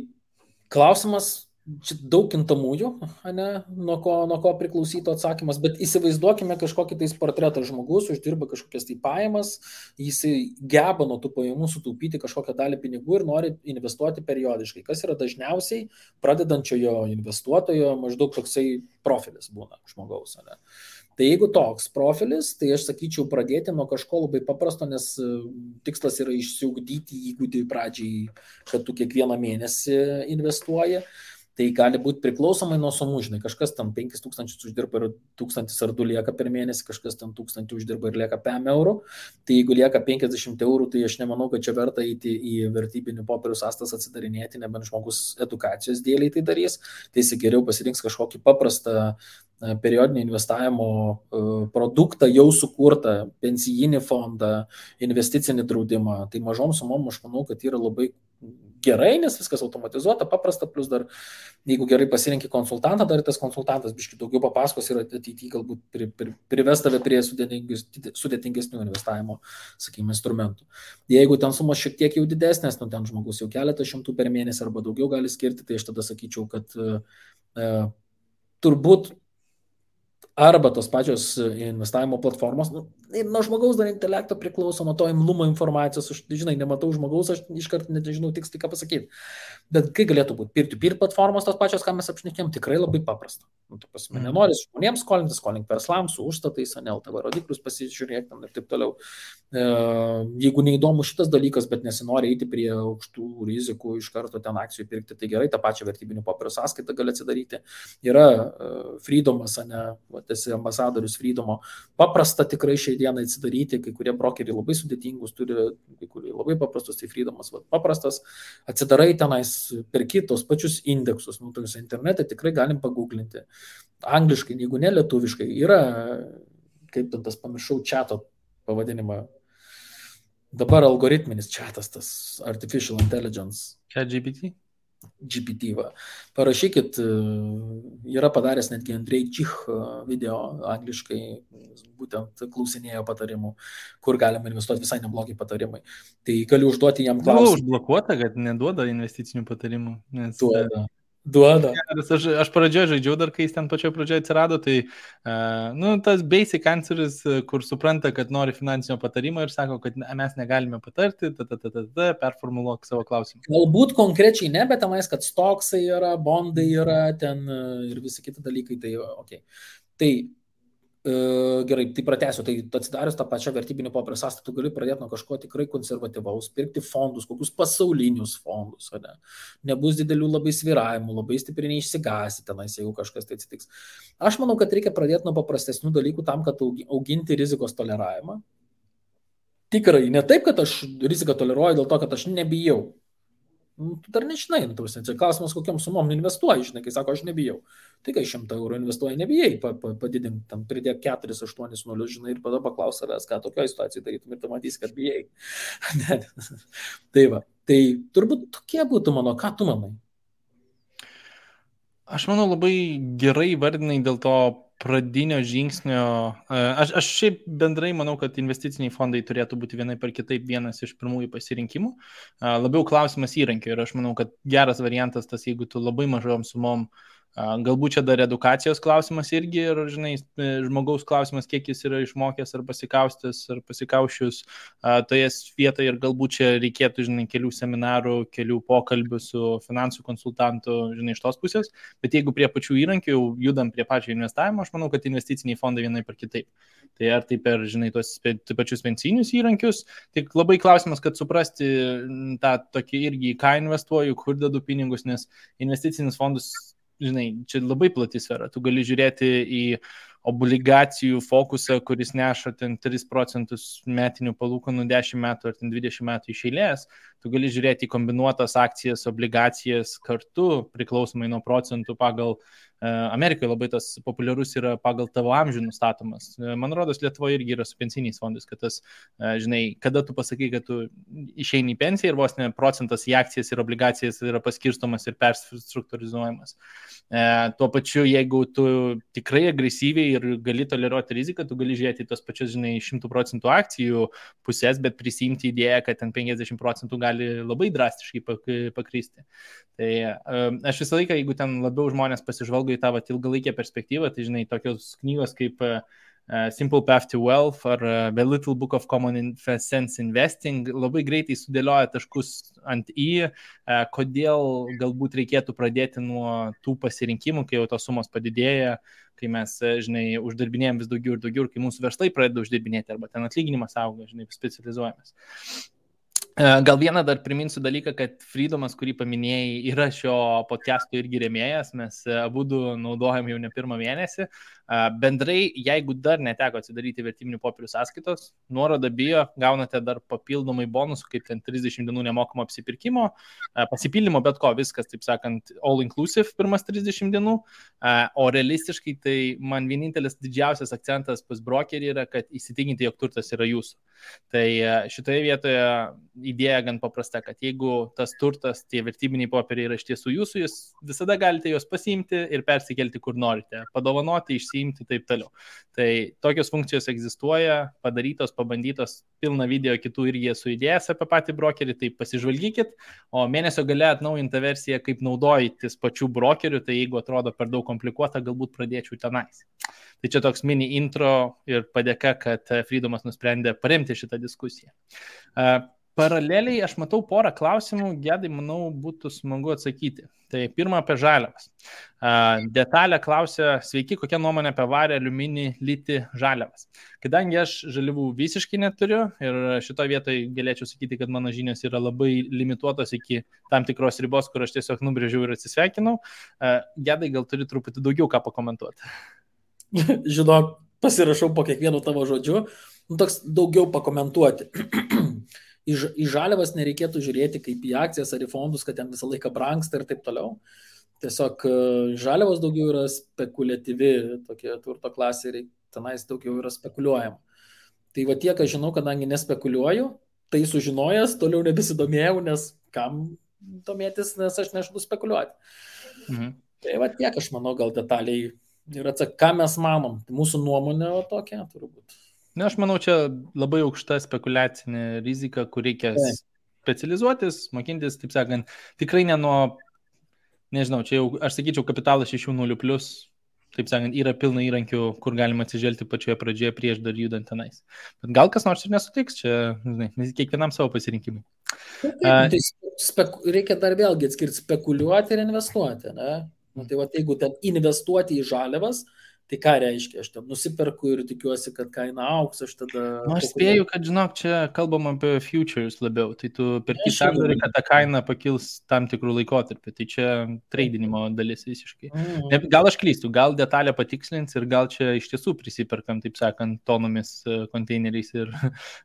klausimas, čia daug kintamųjų, ne, nuo ko priklausytų atsakymas, bet įsivaizduokime kažkokį tais portretą žmogus, uždirba kažkokias tai pajamas, jisai geba nuo tų pajamų sutaupyti kažkokią dalį pinigų ir nori investuoti periodiškai. Kas yra dažniausiai pradedančiojo investuotojo maždaug toksai profilis būna žmogaus, ne. Tai jeigu toks profilis, tai aš sakyčiau pradėti nuo kažko labai paprasto, nes tikslas yra išsiugdyti įgūdį pradžiai, kad tu kiekvieną mėnesį investuoji. Tai gali būti priklausomai nuo sumų, žinai, kažkas tam 5000 uždirba ir 1000 ar 2 lieka per mėnesį, kažkas tam 1000 uždirba ir lieka 5 eurų. Tai jeigu lieka 50 eurų, tai aš nemanau, kad čia verta eiti į vertybinių popierių sąstas atsidarinėti, nebent žmogus edukacijos dėliai tai darys, tai jis geriau pasirinks kažkokį paprastą periodinio investavimo produktą, jau sukurtą pensijinį fondą, investicinį draudimą. Tai mažom sumom aš manau, kad yra labai gerai, nes viskas automatizuota, paprasta, plus dar, jeigu gerai pasirinki konsultantą, dar tas konsultantas biškai daugiau papasakos ir ateityje galbūt prives tave prie sudėtingesnių investavimo, sakykime, instrumentų. Jeigu ten sumos šiek tiek jau didesnės, nu ten žmogus jau keletą šimtų per mėnesį arba daugiau gali skirti, tai aš tada sakyčiau, kad turbūt arba tos pačios investavimo platformos, nuo žmogaus dar intelekto priklauso, nuo to imlumo informacijos, aš, žinai, nematau žmogaus, aš iškart nežinau tiksliai ką pasakyti. Bet kai galėtų būti peer-to-peer platformos, tos pačios, ką mes apšnekėm, tikrai labai paprasta. Nu, tu pasime, nenoris žmonėms skolinti, skolink verslams, su užstatais, LTV rodiklius pasižiūrėk ir taip toliau. Jeigu neįdomu šitas dalykas, bet nesinori eiti prie aukštų rizikų, iš karto ten akcijų pirkti, tai gerai, tą pačią vertybinių popierių sąskaitą gali atsidaryti. Yra Freedomas, esi ambasadorius Freedomo. Paprasta tikrai šiai dienai atsidaryti, kai kurie brokeriai labai sudėtingus turi, kai kurie labai paprastus, tai Freedomas paprastas. Atsidarai tenais, perki tos pačius indeksus, nu, tokius internete tikrai galim paguglinti. Angliškai, jeigu ne lietuviškai, yra, kaip ten tas pamiršau, chato pavadinimą. Dabar algoritminis chatas, tas artificial intelligence. ChatGPT? GPT. Va. Parašykit, yra padaręs netgi Andrei Čich video angliškai, būtent klausinėjo patarimų, kur galima investuoti, visai neblogi patarimai. Tai galiu užduoti jam Buvo klausimą. užblokuota, kad neduoda investicinių patarimų. Nes, Duoda. Aš pradžioje žaidžiau dar, kai jis ten pačioje pradžioje atsirado, tai tas basic answeris, kur supranta, kad nori finansinio patarimo ir sako, kad mes negalime patarti, performuluok savo klausimą. Galbūt konkrečiai ne, bet tenais, kad stoksai yra, bondai yra ten ir visi kiti dalykai, tai ok. Tai gerai, tai pratęsiu, tai atsidarius tą pačią vertybinį popierių sąskaitą, tu gali pradėti nuo kažko tikrai konservatyvaus, pirkti fondus, kokius pasaulinius fondus, ne? Nebus didelių labai sviravimų, labai stipriai neišsigasi tenais, jeigu kažkas tai atsitiks. Aš manau, kad reikia pradėti nuo paprastesnių dalykų tam, kad auginti rizikos toleravimą. Tikrai, ne taip, kad aš riziką toleruoju dėl to, kad aš nebijau. Tu dar nežinai, čia klausimas, kokiam sumom investuoji, žinai, kai sako, aš nebijau. Tai kai 100 eurų investuoji, nebijai, padidink, tam pridėk 4-8-0, žinai, ir tada paklaus savęs, ką tokioje situacijoje darytum ir tu matysi, kad bijai. Tai va, tai turbūt tokie būtų mano, ką tu manai? Aš manau, labai gerai vardinai dėl to pradinio žingsnio. Aš šiaip bendrai manau, kad investiciniai fondai turėtų būti vienai per kitaip vienas iš pirmųjų pasirinkimų. Labiau klausimas įrankio ir aš manau, kad geras variantas tas, jeigu tu labai mažom sumom, galbūt čia dar edukacijos klausimas irgi ir, žinai, žmogaus klausimas, kiek jis yra išmokęs ar pasikaustęs ar pasikaušius toje vietoje ir galbūt čia reikėtų, žinai, kelių seminarų, kelių pokalbių su finansų konsultantu, žinai, iš tos pusės, bet jeigu prie pačių įrankių judam prie pačio investavimo, aš manau, kad investiciniai fondai vienai per kitaip. Tai ar tai per, žinai, tos pačius pensinius įrankius, tik labai klausimas, kad suprasti tą tokį irgi, ką investuoju, kur dedu pinigus, nes investicinis fondus, žinai, čia labai plati sfera. Tu gali žiūrėti į obligacijų fokusą, kuris neša ten 3% metinių palūkanų 10 metų ar ten 20 metų iš eilės. Tu gali žiūrėti į kombinuotas akcijas, obligacijas kartu, priklausomai nuo procentų pagal Amerikoje labai tas populiarus yra pagal tavo amžių nustatomas. Man rodos, Lietuvoje irgi yra su pensiniais fondais, kad tas, žinai, kada tu pasakai, kad tu išeini į pensiją ir vos ne procentas į akcijas ir obligacijas yra paskirstomas ir perstruktūrizuojamas. Tuo pačiu, jeigu tu tikrai agresyviai ir gali toleruoti riziką, tu gali žiūrėti tos pačius, žinai, 100% akcijų pusės, bet prisimti idėją, kad ten 50% gali labai drastiškai pakristi. Tai aš visą laiką, jeigu ten labiau žmonės pasižvalgo į tą ilgalaikę perspektyvą, tai, žinai, tokios knygos kaip Simple Path to Wealth ar The Little Book of Common Sense Investing labai greitai sudėlioja taškus ant į, kodėl galbūt reikėtų pradėti nuo tų pasirinkimų, kai jau tos sumos padidėja, kai mes, žinai, uždirbinėjom vis daugiau ir daugiau, kai mūsų verslai pradeda uždirbinėti arba ten atlyginimas auga, žinai, specializuojamas. Gal vieną dar priminsiu dalyką, kad Freedomas, kurį paminėjai, yra šio podcast'o irgi rėmėjas, mes abudu naudojam jau ne pirmą mėnesį. Bendrai, jeigu dar neteko atsidaryti vertybinių popierių sąskaitos, nuorodą bio, gaunate dar papildomai bonusų, kaip ten 30 dienų nemokamo apsipirkimo, pasipildymo bet ko, viskas, taip sakant, all inclusive pirmas 30 dienų, o realistiškai tai man vienintelis didžiausias akcentas pas brokerį yra, kad įsitikinti, jog turtas yra jūsų. Tai šitoje vietoje idėja gan paprasta, kad jeigu tas turtas, tie vertybiniai popieriai yra iš tiesų jūsų, jūs visada galite juos pasiimti ir persikelti kur norite, padovanoti, išsiimti taip toliau. Tai tokios funkcijos egzistuoja, padarytos, pabandytos, pilna video kitų irgi esu idėjęs apie patį brokerį, tai pasižvalgykit, o mėnesio gale atnaujinta versija, kaip naudojantis pačių brokerių, tai jeigu atrodo per daug komplikuota, galbūt pradėčiau tenais. Tai čia toks mini intro ir padėka, kad Freedomas nusprendė paremti šitą diskusiją. Paraleliai aš matau porą klausimų, Gedai, manau, būtų smagu atsakyti. Tai pirma apie žaliavas. Detalė klausia, sveiki, kokia nuomonė apie varį, aliuminį, litį, žaliavas. Kadangi aš žaliavų visiškai neturiu ir šitoje vietoje galėčiau sakyti, kad mano žinios yra labai limituotos iki tam tikros ribos, kur aš tiesiog nubrėžiau ir atsisveikinau. Gedai, gal turi truputį daugiau ką pakomentuoti? Žinok, pasirašau po kiekvienu tavo žodžiu, toks daugiau pakomentuoti. Į žaliavas nereikėtų žiūrėti kaip į akcijas ar į fondus, kad ten visą laiką brangsta ir taip toliau. Tiesiog žaliavos daugiau yra spekuliatyvi, tokie turto klasė ir tenais daugiau yra spekuliuojama. Tai va tiek, aš žinau, kadangi nespekuliuoju, tai sužinojęs, toliau nebesidomėjau, nes kam domėtis, nes aš nežadu spekuliuoti. Tai va tiek, aš manau, gal detaliai ir ką mes manom. Mūsų nuomonė tokia turbūt. Na, aš manau, čia labai aukšta spekulacinė rizika, kur reikia specializuotis, mokintis, taip sakant, tikrai ne nuo, nežinau, čia jau, aš sakyčiau, kapitalas 6.0 plus, taip sakant, yra pilna įrankių, kur galima atsižvelgti pačioje pradžioje prieš dar judant tenais. Bet gal kas nors ir nesutiks, čia, žinai, kiekvienam savo pasirinkimui. Tai reikia dar vėlgi atskirti spekuliuoti ir investuoti, ne? Nu, tai va, jeigu ten investuoti į žaliavas, tai ką reiškia? Aš ten nusiperku ir tikiuosi, kad kaina auks, aš tada... Nu, aš spėju, kad, žinok, čia kalbam apie futures labiau, tai tu perki sandorį, kad ta kaina pakils tam tikrų laikotarpį, tai čia tradinimo dalis visiškai. Gal aš klystu, gal detalę patikslins ir gal čia iš tiesų prisiperkam, taip sakant, tonomis konteineriais ir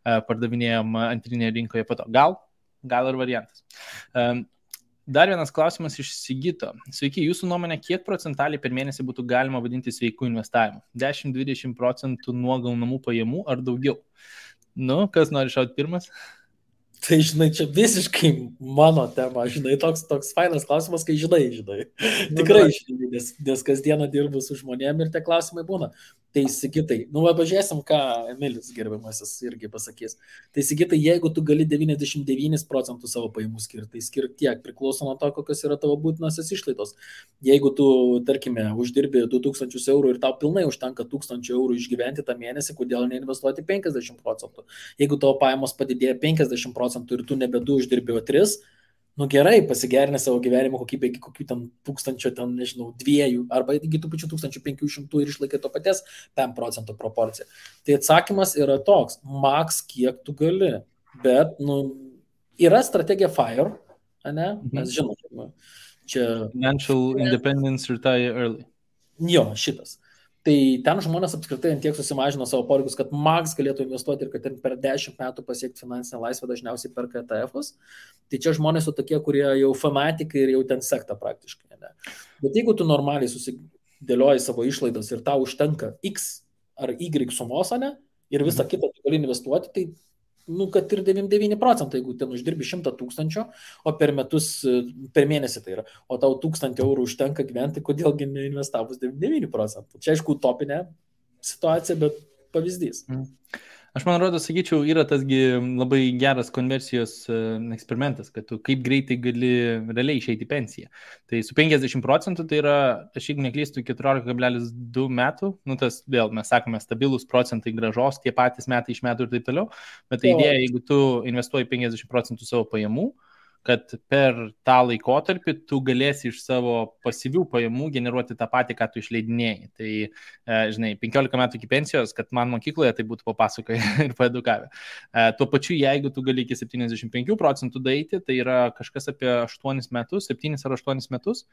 pardavinėjom antrinėje rinkoje po to. Gal ir variantas. Dar vienas klausimas iš Sigito. Sveiki, jūsų nuomonė, kiek procentaliai per mėnesį būtų galima vadinti sveikų investavimu? 10-20% nuo gaunamų pajamų ar daugiau? Nu, kas nori šauti pirmas? Tai, žinai, čia visiškai mano tema, žinai, toks fainas klausimas, kai žinai. Tikrai žinai, nes kasdieną dirbu su žmonėm ir tie klausimai būna. Tai Sigitai, pažiūrėsim, ką Emilis gerbiamasis irgi pasakys. Tai Sigitai, jeigu tu gali 99% savo pajamų skirti, tai skirti tiek, priklauso nuo to, kokios yra tavo būtinosios išlaidos. Jeigu tu, tarkime, uždirbi 2000 eurų ir tau pilnai užtenka 1000 eurų išgyventi tą mėnesį, kodėl neinvestuoti 50%? Jeigu tavo pajamos padidėja 50% ir tu nebe 2 uždirbi, o 3, nu gerai, pasigerinę savo gyvenimo kokybę iki kokių ten 1000, ten, nežinau, 2 arba iki tų pačių 1500 ir išlaikai to paties 5% proporciją. Tai atsakymas yra toks, maks kiek tu gali, bet, yra strategija FIRE, ne? Mes žinome, čia... Financial Independence Retire Early. Jo, šitas. Tai ten žmonės apskritai tiek susimažino savo poreikius, kad maks galėtų investuoti ir kad per 10 metų pasiekti finansinę laisvę, dažniausiai perka ETF-us. Tai čia žmonės su tokie, kurie jau fanatikai ir jau ten sekta praktiškai. Ne? Bet jeigu tu normaliai susidėlioji savo išlaidas ir tau užtenka X ar Y sumos, ne, ir visą kitą tu gali investuoti, tai kad ir 99%, jeigu ten uždirbi 100 000, o per mėnesį tai yra, o tau 1000 eurų užtenka gyventi, kodėlgi neinvestavus 99%. Čia aišku utopinė situacija, bet pavyzdys. Aš man rodo, sakyčiau, yra tasgi labai geras konversijos eksperimentas, kad tu kaip greitai gali realiai išeiti į pensiją. Tai su 50% tai yra, aš jeigu neklystu, 14,2 metų, tas vėl mes sakome stabilus procentai grąžos, tie patys metai iš metų ir taip toliau, bet tai idėja, jeigu tu investuoji 50% savo pajamų, kad per tą laikotarpį tu galėsi iš savo pasyvių pajamų generuoti tą patį, ką tu išleidinėjai. Tai, žinai, 15 metų iki pensijos, kad man mokykloje tai būtų papasakoję ir paedukavę. Tuo pačiu, jeigu tu gali iki 75% daeiti, tai yra kažkas apie 8 metus, 7 ar 8 metus,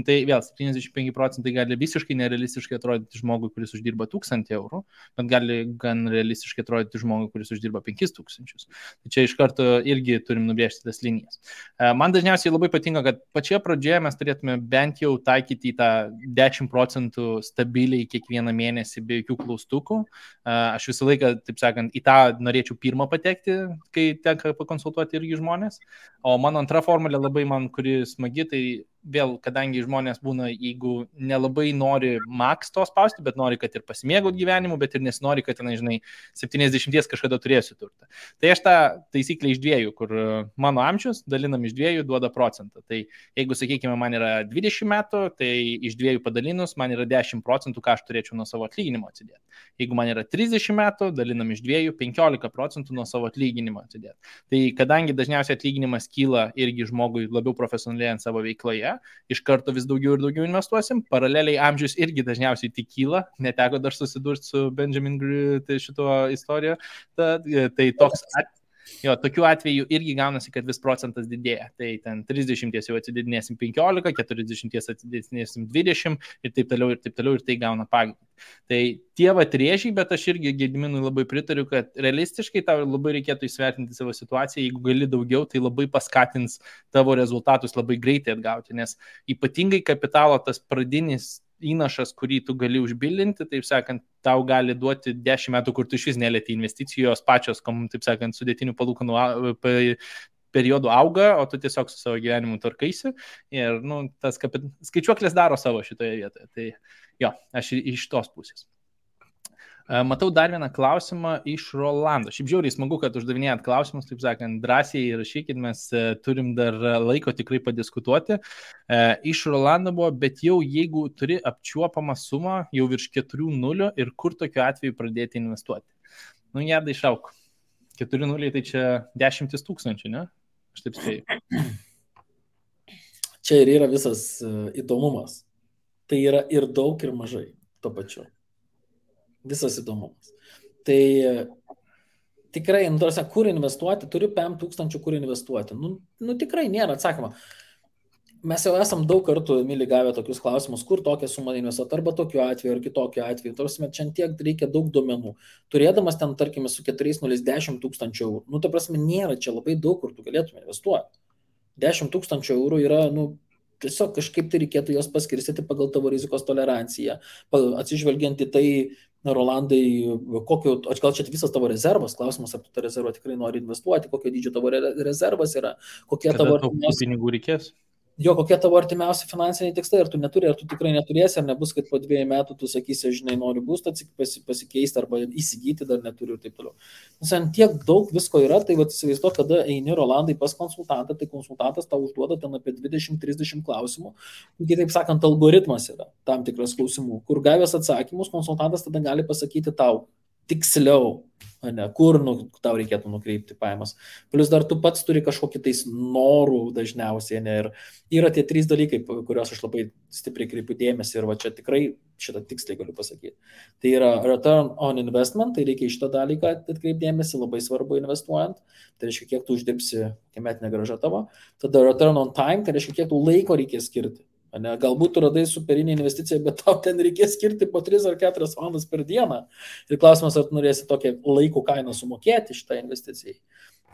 tai vėl 75% gali visiškai nerealistiškai atrodyti žmogui, kuris uždirba 1000 eurų, bet gali gan realistiškai atrodyti žmogui, kuris uždirba 5000. Tai čia iš karto irgi turim nubrėžti tas linijas. Man dažniausiai labai patinka, kad pačioje pradžioje mes turėtume bent jau taikyti tą 10% stabiliai kiekvieną mėnesį be jokių klaustukų. Aš visą laiką, taip sakant, į tą norėčiau pirmą patekti, kai tenka pakonsultuoti irgi žmonės. O mano antra formulė labai man, kuri smagi, tai vėl, kadangi žmonės būna, jeigu nelabai nori maks to spausti, bet nori, kad ir pasimėgaut gyvenimu, bet ir nesinori, kad, žinai, 70 kažkada turėsiu turtą. Tai aš tą taisyklę iš 2, kur mano amžius dalinam iš 2 duoda procentą. Tai jeigu, sakykime, man yra 20 metų, tai iš 2 padalinus man yra 10%, ką aš turėčiau nuo savo atlyginimo atsidėti. Jeigu man yra 30 metų, dalinam iš 2 15% nuo savo atlyginimo atsidėti. Tai kadangi dažniausiai atlyginimas kyla irgi žmogui labiau profesionaliai ant savo veikloje, iš karto vis daugiau ir daugiau investuosim. Paraleliai amžius irgi dažniausiai tik kyla. Neteko dar susidurti su Benjamin šito istoriją. Tai toks tokiu atveju irgi gaunasi, kad vis procentas didėja. Tai ten 30 jau atsididinėsim 15, 40 atsididinėsim 20 ir taip toliau ir tai gauna pagreitį. Tai tie rėžiai, bet aš irgi Gediminui labai pritariu, kad realistiškai tau labai reikėtų įsvertinti savo situaciją. Jeigu gali daugiau, tai labai paskatins tavo rezultatus labai greitai atgauti, nes ypatingai kapitalo tas pradinis įnašas, kurį tu gali užbildinti, taip sakant, tau gali duoti 10 metų, kur tu iš vis nelieti investicijos pačios, taip sakant, sudėtinių palūkanų periodu auga, o tu tiesiog su savo gyvenimu tvarkaisi ir, tas skaičiuoklės daro savo šitoje vietoje. Tai jo, aš iš tos pusės. Matau dar vieną klausimą iš Rolando. Šiaip žiauriai smagu, kad uždavinėjat klausimus, taip sakant, drąsiai rašykit, mes turim dar laiko tikrai padiskutuoti. Iš Rolando buvo, bet jau jeigu turi apčiuopamą sumą, jau virš 4.0 ir kur tokiu atveju pradėti investuoti? Jadai išauk. 4.0 tai čia 10 000, ne? Aš taip spėju. Čia ir yra visas įdomumas. Tai yra ir daug, ir mažai tuo pačiu. Visas įdomumas. Tai tikrai, kur investuoti, turiu 5,000 kur investuoti. Tikrai nėra atsakymą. Mes jau esam daug kartų, Mili, gavę tokius klausimus, kur tokią sumą investuoti, arba tokiu atveju, ar kitokiu atveju. Tarsi, čia tiek reikia daug duomenų. Turėdamas ten, tarkime, su 4,0 10 000 eurų, ta prasme, nėra čia labai daug, kur tu galėtum investuoti. 10 000 eurų yra, tiesiog kažkaip tai reikėtų jos paskirstyti pagal tavo rizikos toleranciją, atsižvelgiant į tai, Rolandai, gal čia visas tavo rezervas, klausimas, ar tu tą rezervą tikrai nori investuoti, kokio dydžio tavo rezervas yra, kokie tavo pinigų reikės. Jo, kokie tavo artimiausi finansiniai tikslai, ar tu neturi, ar tu tikrai neturėsi, ar nebus, kad po 2 metų tu sakysi, žinai, noriu būstą pasikeisti arba įsigyti, dar neturiu ir taip toliau. Nes ant tiek daug visko yra, tai įsivaizduok, kada eini Rolandai pas konsultantą, tai konsultantas tau užduoda ten apie 20-30 klausimų, kitaip sakant, algoritmas yra tam tikras klausimų, kur gavęs atsakymus, konsultantas tada gali pasakyti tau tiksliau, kur tau reikėtų nukreipti pajamas. Plus dar tu pats turi kažkokį tais norų dažniausiai, ir yra tie 3 dalykai, kuriuos aš labai stipriai kreipiu dėmesį ir va čia tikrai šitą tiksliai galiu pasakyti. Tai yra return on investment, tai reikia iš tą dalyką atkreipti dėmesį, labai svarbu investuojant, tai reiškia, kiek tu uždirbsi, kiek metinė grąža tavo. Tada return on time, tai reiškia, kiek tu laiko reikės skirti. Galbūt tu radai superinį investiciją, bet tau ten reikės skirti po 3 ar 4 valandas per dieną. Ir klausimas, ar tu norėsi tokią laiko kainą sumokėti šitą investiciją.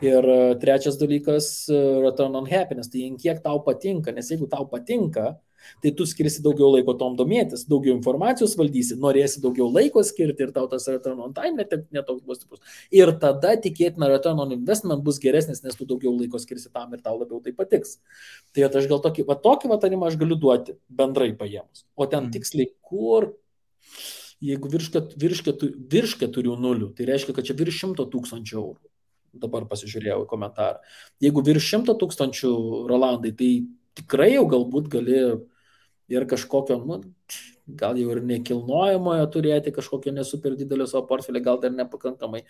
Ir trečias dalykas, return on happiness, tai kiek tau patinka, nes jeigu tau patinka, tai tu skirsi daugiau laiko tom domėtis, daugiau informacijos valdysi, norėsi daugiau laiko skirti ir tau tas return on time netoks bus stiprus. Ir tada tikėtina return on investment bus geresnis, nes tu daugiau laiko skirsi tam ir tau labiau tai patiks. Tai aš gal tokį vatarimą aš galiu duoti bendrai paėmus. O ten tiksliai kur, jeigu virš 4.0, tai reiškia, kad čia virš 100 000 eurų. Dabar pasižiūrėjau į komentarą. Jeigu virš 100 000 Rolandai, tai tikrai jau galbūt gali ir kažkokio, gal jau ir nekilnojamojo turėti, kažkokio nesuper didelio savo portfelį, gal dar nepakankamai.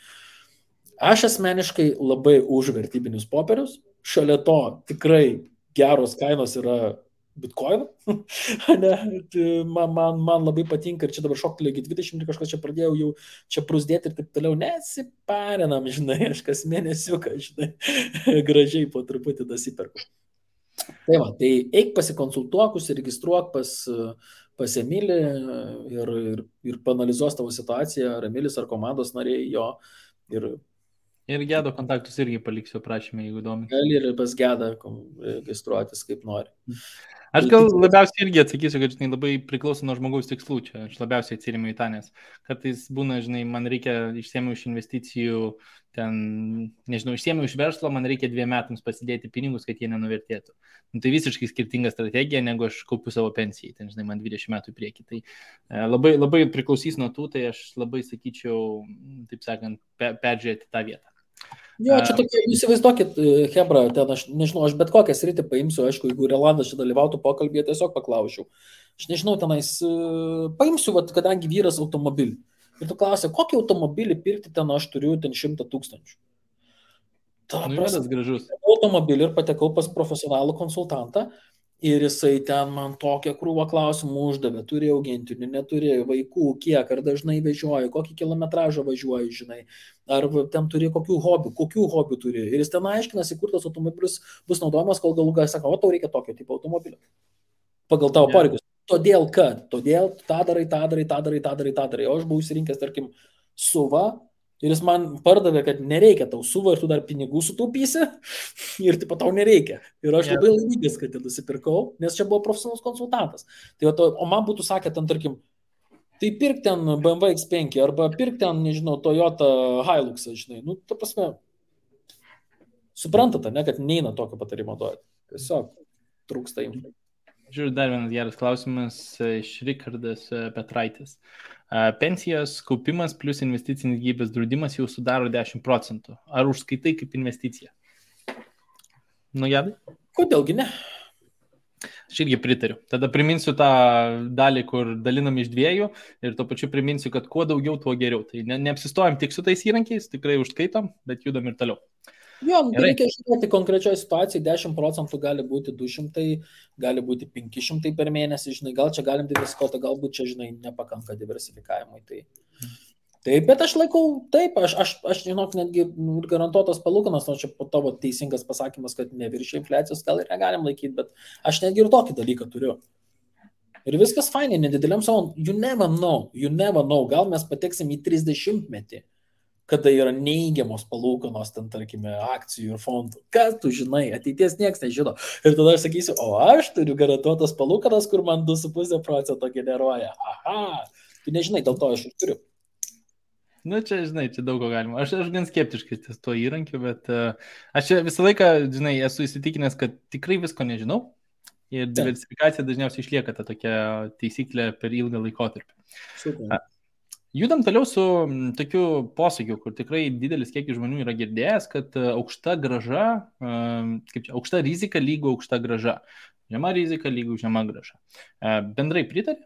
Aš asmeniškai labai už vertybinius popierius. Šalia to tikrai geros kainos yra Bitcoin. man labai patinka ir čia dabar šoktelė 20 ir kažkas čia pradėjau jau čia prusdėti ir taip toliau. Nesiparinam, žinai, aš kas mėnesiuką, žinai, gražiai po truputį dasiperku. Tai va, tai eik pasikonsultuok, užsiregistruok pas Emilį ir panalizuos tavo situaciją, ar Emilis, ar komandos nariai jo. Ir Gedo kontaktus irgi paliksiu prašymę, jeigu įdomi. Gali ir pas Gedą registruotis kaip nori. Aš gal labiausiai irgi atsakysiu, kad žinai, labai priklauso nuo žmogaus tikslų čia. Aš labiausiai atsirimiu į tą, nes kartais būna, žinai, man reikia išsiėmiau iš investicijų, ten, nežinau, išsiėmiau iš verslo, man reikia 2 metams pasidėti pinigus, kad jie nenuvertėtų. Tai visiškai skirtinga strategija, negu aš kaupiu savo pensijai, ten, žinai, man 20 metų į priekį. Tai labai priklausys nuo tų, tai aš labai sakyčiau, taip sakant, peržiūrėti tą vietą. Jo, čia tokia, įsivaizduokit, Hebra, ten aš nežinau, aš bet kokią sritį paimsiu, aišku, jeigu Rolandas čia dalyvautų pokalbėje, tiesiog paklausiau. Aš nežinau, tenais paimsiu, kadangi vyras automobilį. Ir tu klausai, kokį automobilį pirkti ten aš turiu, ten 100 000. Tas gražus. Automobilį ir patekau pas profesionalų konsultantą. Ir jisai ten man tokią krūvą klausimų uždavė, turėjau augintinių, neturėjau vaikų, kiek, ar dažnai vežioju, kokį kilometražą važiuoju, žinai, ar ten turi kokių hobių turi. Ir jis ten aiškinasi, kur tas automobilis bus naudojamas, kol galų gale sako, o tau reikia tokio tipo automobilio. Pagal tavo poreikius. Todėl tą darai. O aš buvau įsirinkęs, tarkim, SUV. Ir jis man pardavė, kad nereikia tau SUV ir tu dar pinigų sutaupysi ir tipo tau nereikia. Ir aš labai laimingas, kad nusipirkau, nes čia buvo profesionalus konsultantas. Tai, o man būtų sakę ten, tarkim, tai pirk ten BMW X5 arba pirk ten, nežinau, Toyota Hilux, žinai. Ta prasme, Suprantate, ne, kad neina tokio patarimo duoti. Tiesiog trūksta info. Žiūrėjau, dar vienas geras klausimas iš Rikardas Petraitis. Pensijos kaupimas plus investicinis gyvybės draudimas jau sudaro 10%. Ar užskaitai kaip investicija? Nu, Jadai? Kodėlgi ne? Aš irgi pritariu. Tada priminsiu tą dalį, kur dalinam iš 2 ir tuo pačiu priminsiu, kad kuo daugiau, tuo geriau. Tai neapsistojam tik su tais įrankiais, tikrai užskaitom, bet judam ir toliau. Jo, reikia žiūrėti konkrečioje situacijoje, 10% gali būti 200, gali būti 500 per mėnesį, žinai, gal čia galim diversifikuoti, galbūt čia, žinai, nepakanka diversifikavimui. Taip, bet aš laikau, taip, aš žinok, netgi garantuotas palūkanas, nors čia po tavo teisingas pasakymas, kad neviršia infliacijos, gal ir negalim laikyti, bet aš netgi ir tokį dalyką turiu. Ir viskas fainai, nedideliam savo, you never know, gal mes pateksim į 30-metį. Kada yra neįgiamos palūkanos, ten, tarkime, akcijų ir fondų. Kas tu žinai, ateities niekas nežino. Ir tada aš sakysiu, o aš turiu garantuotas palūkanas, kur man 2,5% generuoja. Aha, tu nežinai, dėl to aš ir turiu. Nu, čia, žinai, čia daug ko galima. Aš gan skeptiškai ties tuo įrankiu, bet aš čia visą laiką, žinai, esu įsitikinęs, kad tikrai visko nežinau. Ir diversifikacija dažniausiai išlieka ta tokia taisyklė per ilgą laikotarpį. Super. Judam toliau su tokiu posakiu, kur tikrai didelis kiekis žmonių yra girdėjęs, kad aukšta grąža, aukšta rizika lygu aukšta grąža. Žema rizika lygu žema grąža. Bendrai pritari?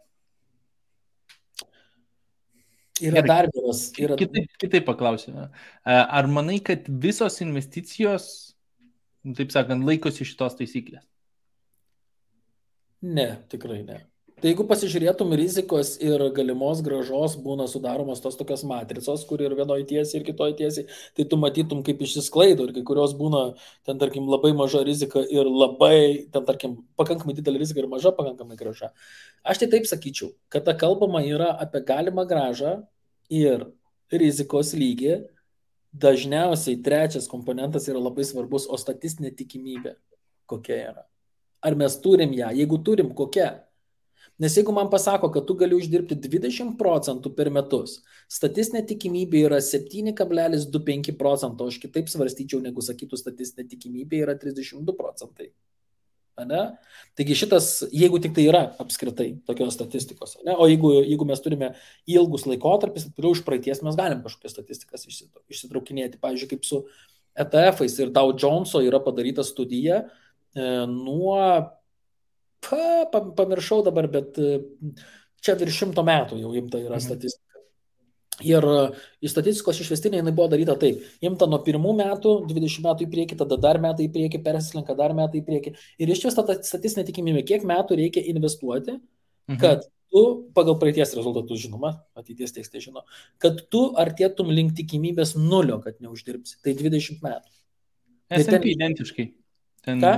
Yra dar vienas. Kitaip paklausiu. Ar manai, kad visos investicijos, taip sakant, laikosi šitos taisyklės? Ne, tikrai ne. Tai jeigu pasižiūrėtum rizikos ir galimos grąžos būna sudaromos tos tokios matricos, kur ir vienoje tiesiai ir kitoje tiesiai, tai tu matytum, kaip išsisklaido ir kai kurios būna, ten, tarkim, labai maža rizika ir labai, ten, tarkim, pakankamai didelė rizika ir maža pakankamai grąža. Aš tai taip sakyčiau, kad ta kalbama yra apie galimą grąžą ir rizikos lygį. Dažniausiai trečias komponentas yra labai svarbus, o statistinė tikimybė kokia yra. Ar mes turim ją? Jeigu turim, kokia? Nes jeigu man pasako, kad tu gali uždirbti 20% per metus, statistinė tikimybė yra 7,25%, aš kitaip svarstyčiau, negu sakytų statistinė tikimybė yra 32%. Ane? Taigi šitas, jeigu tik tai yra apskritai tokios statistikos, ne? O jeigu mes turime ilgus laikotarpis, tai už praeities mes galim kažkokias statistikas išsitraukinėti. Pavyzdžiui, kaip su ETF-ais ir Dow Joneso yra padaryta studija nuo pamiršau dabar, bet čia virš 100 metų jau imta yra statistika. Ir statistikos išvestinė jinai buvo daryta taip. Imta nuo 1 metų, 20 metų į priekį, tada dar metai į priekį, persislenka dar metai į priekį. Ir išvesta ta statistinė tikimybė, kiek metų reikia investuoti, kad tu, pagal praeities rezultatus žinoma, ateities tekstai žino, kad tu artėtum link tikimybės 0, kad neuždirbsi. Tai 20 metų. S&P identiškai. Ką?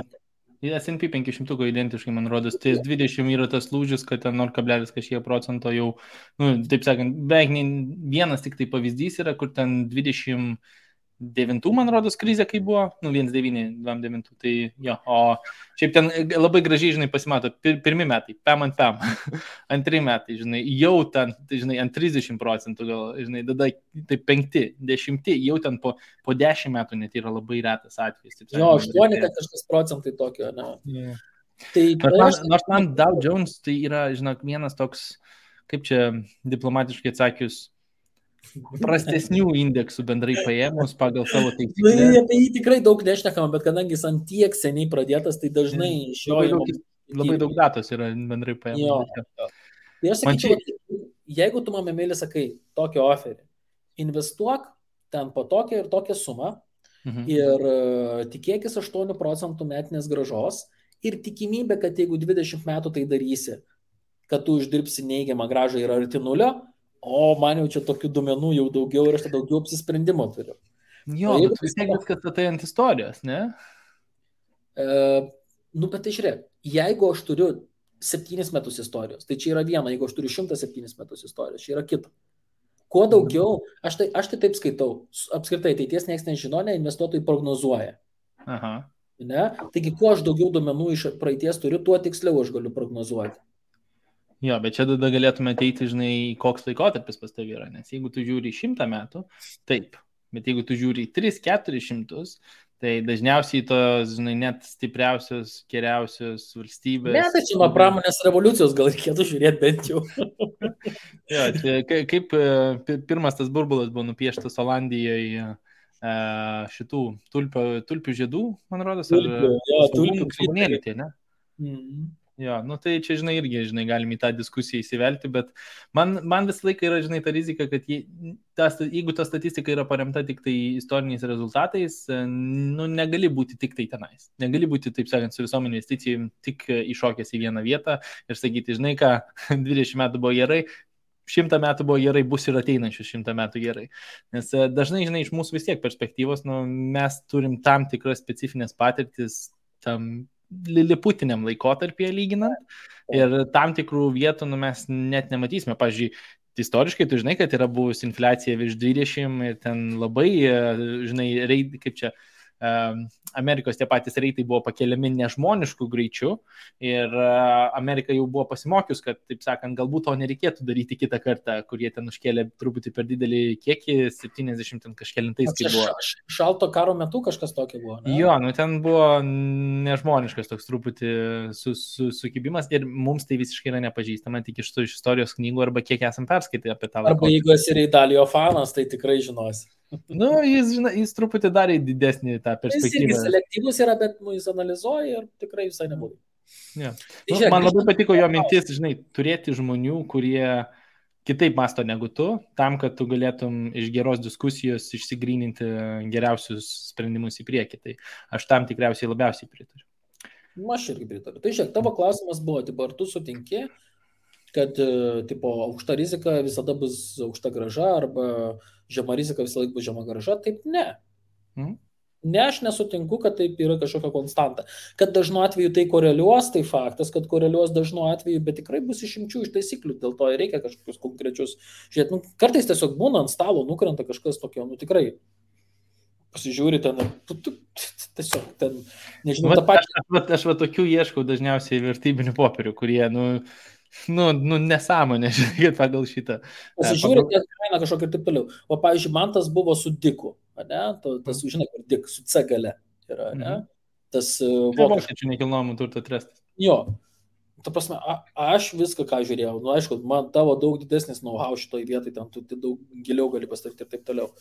S&P 500 identiškai, man rodos, tai 20 yra tas lūžis, kad ten 0,kažkiek% jau, nu, taip sakant, beveik vienas tik tai pavyzdys yra, kur ten 29, man rodos, krizė kai buvo, nu, 1,9, 2,9, tai jo, o šiaip ten labai gražiai, žinai, pasimato, pirmi metai, pam ant pam, antri metai, žinai, jau ten, tai, žinai, ant 30% gal, žinai, tada tai 5, 10, jau ten po 10 metų net yra labai retas atvejis. Jo, 8% tokio, ne. Yeah. Tai nors man Dow Jones tai yra, žinok, vienas toks, kaip čia diplomatiškai atsakius, prastesnių indeksų bendrai paėmus pagal savo taisyklę. Apie jį tikrai daug nešnekama, bet kadangi jis ant tiek seniai pradėtas, tai dažnai iš jo labai daug datos yra bendrai paėmus. Tai aš sakyčiau, jeigu tu man mėly sakai tokį oferį, investuok ten po tokią ir tokią sumą ir tikėkis 8% metinės grąžos ir tikimybė, kad jeigu 20 metų tai darysi, kad tu uždirbsi neigiamą grąžą yra arti 0, o man jau čia tokių duomenų jau daugiau ir aš tai daugiau apsisprendimo turiu. Jo, bet vis tiek viskas tai ant istorijos, ne? Nu, bet tai žiūrėk, jeigu aš turiu 7 metus istorijos, tai čia yra viena, jeigu aš turiu 107 metus istorijos, čia yra kita. Kuo daugiau, aš tai taip skaitau, apskritai ateities niekas nežino, ne, investuotojai prognozuoja. Aha. Ne? Taigi, kuo aš daugiau duomenų iš praeities turiu, tuo tiksliau aš galiu prognozuoti. Jo, bet čia tada galėtume ateiti, žinai, koks laikotarpis pas tavį yra, nes jeigu tu žiūri 100 metų, taip, bet jeigu tu žiūri 300-400, Tai dažniausiai tos, žinai, net stipriausios, geriausios valstybės. Ne, tai čia nuo pramonės revoliucijos gal reikėtų žiūrėti bent jau. Jo, čia kaip pirmas tas burbulas buvo nupieštas Olandijoje šitų tulpių žiedų, man rodos, tulpių svogūnėlių tie, ne? Mhm. Jo, nu tai čia, žinai, irgi, žinai, galim į tą diskusiją įsivelti, bet man visą laiką yra, žinai, ta rizika, kad jeigu ta statistika yra paremta tik tai istoriniais rezultatais, nu, negali būti tik tai tenais. Negali būti, taip sakant, su visom investicijom tik iššokęs į vieną vietą ir sakyti, žinai ką, 20 metų buvo gerai, 100 metų buvo gerai, bus ir ateinančius 100 metų gerai. Nes dažnai, žinai, iš mūsų vis tiek perspektyvos, nu, mes turim tam tikras specifinės patirtis tam liliputiniam laikotarpyje lyginant ir tam tikrų vietų mes net nematysime. Pavyzdžiui, istoriškai tu žinai, kad yra buvusi infliacija virš 20 ir ten labai, žinai, kaip čia, Amerikos tie patys reitai buvo pakeliami nežmoniškų greičių ir Amerika jau buvo pasimokius, kad, taip sakant, galbūt to nereikėtų daryti kitą kartą, kurie ten užkėlė truputį per didelį kiekį, 70 kažkelintais, kai buvo. Šalto karo metu kažkas tokio buvo, ne? Jo, nu ten buvo nežmoniškas toks truputį sukibimas ir mums tai visiškai yra nepažįstama, tik iš istorijos knygų arba kiek esam perskaitę apie tą laiką. Arba jeigu esi Reidalio fanas, tai tikrai žinosi. Nu, jis truputį darė didesnį tą perspektyvą. Jis irgi selektyvus yra, bet jis analizuoja ir tikrai visai nebūtų. Yeah. Nu, man labai patiko jo mintis, žinai, turėti žmonių, kurie kitaip masto negu tu, tam, kad tu galėtum iš geros diskusijos išsigryninti geriausius sprendimus į priekį. Tai aš tam tikriausiai labiausiai pritariu. Aš irgi pritariu. Tai žiūrėk, tavo klausimas buvo, tipo, ar tu sutinki, kad tipo, aukšta rizika visada bus aukšta grąža arba žema rizika visą laiką bus žema grąža? Taip, ne. Ne, aš nesutinku, kad taip yra kažkokia konstanta. Kad dažnu atveju tai koreliuos, tai faktas, kad koreliuos dažnu atveju, bet tikrai bus išimčių iš taisyklių, dėl to reikia kažkokius konkrečius. Žiūrėt, nu, kartais tiesiog būna ant stalo, nukrenta kažkas tokio, nu tikrai pasižiūri ten, tiesiog ten, nežinau, tą pačią. Aš va tokių ieškau dažniausiai vertybinių popierių, kurie, nu nesąmonė, žiūrėkit, pagal šitą. Pasižiūrėt, kainą kažkokia ir taip toliau. O, pavyzdžiui, man tas buvo su Diku, ne? Tas, žinai, kur Dik, su C gale yra, ne? Tas vokiečių nekilnojamų turto trestas. Jo. Ta prasme, aš viską, ką žiūrėjau, nu, aišku, man tavo daug didesnis know-how šitoj vietai, ten tu daug giliau gali pastarti ir taip toliau.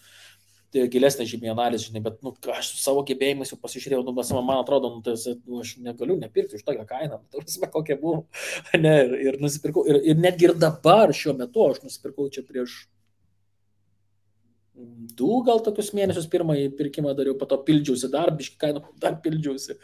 Tai gilesnė žymiai analizė, žinai, bet aš savo gebėjimus jau pasižiūrėjau, man atrodo, aš negaliu nepirkti už tokią kainą, kokia buvo, ne, ir nusipirkau, ir netgi ir dabar šiuo metu aš nusipirkau čia prieš 2 gal tokius mėnesius pirmąjį pirkimą dariau, po to pildžiausi dar, biškį kainą dar pildžiausi.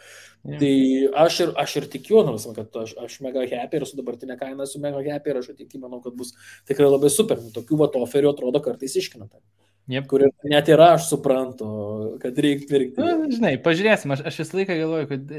Yeah. Tai aš ir tikiu, kad aš mega happy ir su dabartinė kaina esu mega happy ir aš tikiu, manau, kad bus tikrai labai super. Tokių oferių atrodo kartais iškinata. Yep. Kur net ir aš suprantu, kad reikia pirkti. Žinai, pažiūrėsim, aš visą laiką galvoju, kad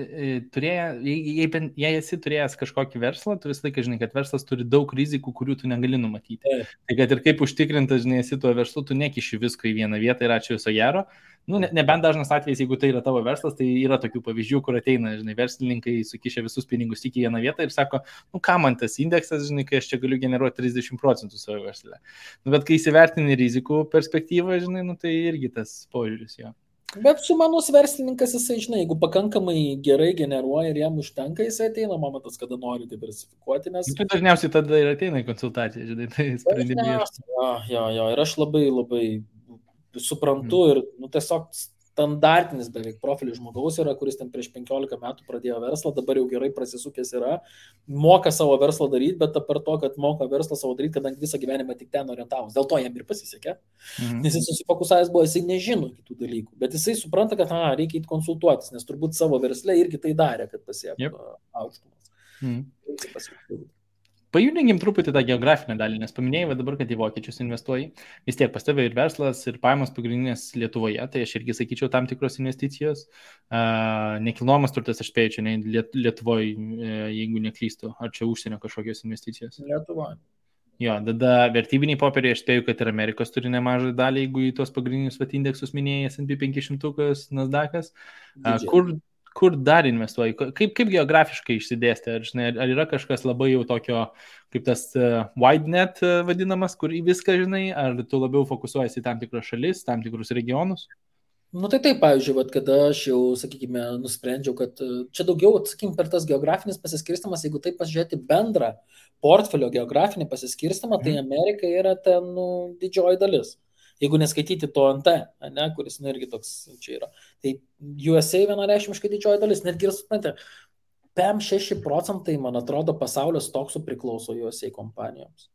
jei esi turėjęs kažkokį verslą, tu visą laiką žinai, kad verslas turi daug rizikų, kurių tu negali numatyti. Tai kad ir kaip užtikrintas, žinai, esi tuo verslu, tu nekiši visko į vieną vietą ir ačiū viso gero. Nu, nebent dažnas atvejis, jeigu tai yra tavo verslas, tai yra tokių pavyzdžių, kur ateina, žinai, verslininkai sukišia visus pinigus tik į vieną vietą ir sako, nu ką man tas indeksas, žinai, kai aš čia galiu generuoti 30% savo verslę. Nu, bet kai įsivertini rizikų perspektyvą, žinai, nu tai irgi tas požiūris jo. Bet sumanus verslininkas, jisai, žinai, jeigu pakankamai gerai generuoja ir jam užtenka, jisai ateina momentas, kada nori diversifikuoti, nes... Tai dažniausiai tada ir ateina į konsultaciją, žinai, tai sprendimai. Jo, ir aš labai suprantu ir tiesiog standartinis beveik profilis žmogaus yra, kuris ten prieš 15 metų pradėjo verslą, dabar jau gerai prasisukęs yra, moka savo verslą daryti, bet per to, kad moka verslą savo daryti, kadangi visą gyvenimą tik ten orientavus. Dėl to jam ir pasisekė, nes jis susifokusavęs buvo, jisai nežino kitų dalykų, bet jisai supranta, kad reikia įti konsultuotis, nes turbūt savo versle irgi tai darė, kad pasiektų aukštumas. Pajudinkim truputį tą geografinę dalį, nes paminėjai dabar, kad į vokiečius investuoji. Vis tiek pas tave ir verslas, ir pajamos pagrindinės Lietuvoje, tai aš irgi sakyčiau tam tikros investicijos. Nekilnojamas turtas, aš spėju, čia Lietuvoje, jeigu neklystu, ar čia užsienio kažkokios investicijos? Lietuvoje. Jo, tada vertybiniai popieriai, aš spėju, kad ir Amerikos turi nemažą dalį, jeigu į tos pagrindinius indeksus minėjai, S&P 500, Nasdaq'as. Kur dar investuoji? Kaip geografiškai išsidėstė? Ar yra kažkas labai jau tokio, kaip tas wide net vadinamas, kur į viską žinai, ar tu labiau fokusuojasi į tam tikras šalis, tam tikrus regionus? Nu tai taip, pavyzdžiui, vat, kada aš jau, sakykime, nusprendžiau, kad čia daugiau, sakykime, per tas geografinis pasiskirstimas, jeigu taip pasižiūrėti bendrą portfelio geografinį pasiskirstimą, tai Amerika yra ten didžioji dalis. Jeigu neskaityti to NT, ne, kuris irgi toks čia yra. Tai USA vienareikšmiškai didžioji dalis, netgi ir suprantate, 5-6%, man atrodo, pasaulio stoksų priklauso USA kompanijoms.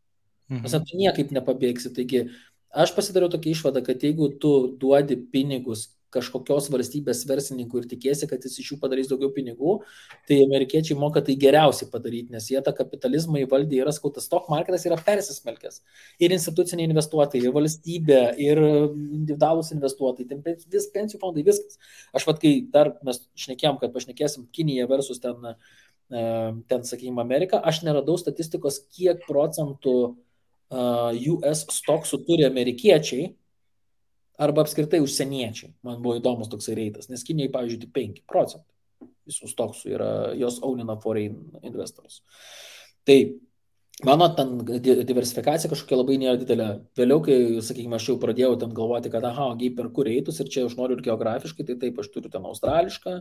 Nes tu niekaip nepabėgsi. Taigi, aš pasidariau tokią išvadą, kad jeigu tu duodi pinigus kažkokios valstybės verslininkui ir tikėsi, kad jis iš jų padarys daugiau pinigų, tai amerikiečiai moka tai geriausiai padaryti, nes jie tą kapitalizmą įvaldė, yra skautas, stock marketas yra persismelkęs. Ir instituciniai investuotojai, ir valstybė, ir individualūs investuotojai, vis pensijų fondai, viskas. Aš vat, kai dar mes šnekėjom, kad pašnekėsim Kinija versus ten, sakykime, Amerika, aš neradau statistikos, kiek procentų US stoksų turi amerikiečiai arba apskritai užsieniečiai. Man buvo įdomus toksai reitas, nes Kinijai, pavyzdžiui, tik 5% visų stoksų yra, jos ownina foreign investors. Tai mano ten diversifikacija kažkokia labai nėra didelė. Vėliau, kai, sakykime, aš jau pradėjau ten galvoti, kad per kur eitus ir čia aš noriu ir geografiškai, tai taip, aš turiu ten australišką,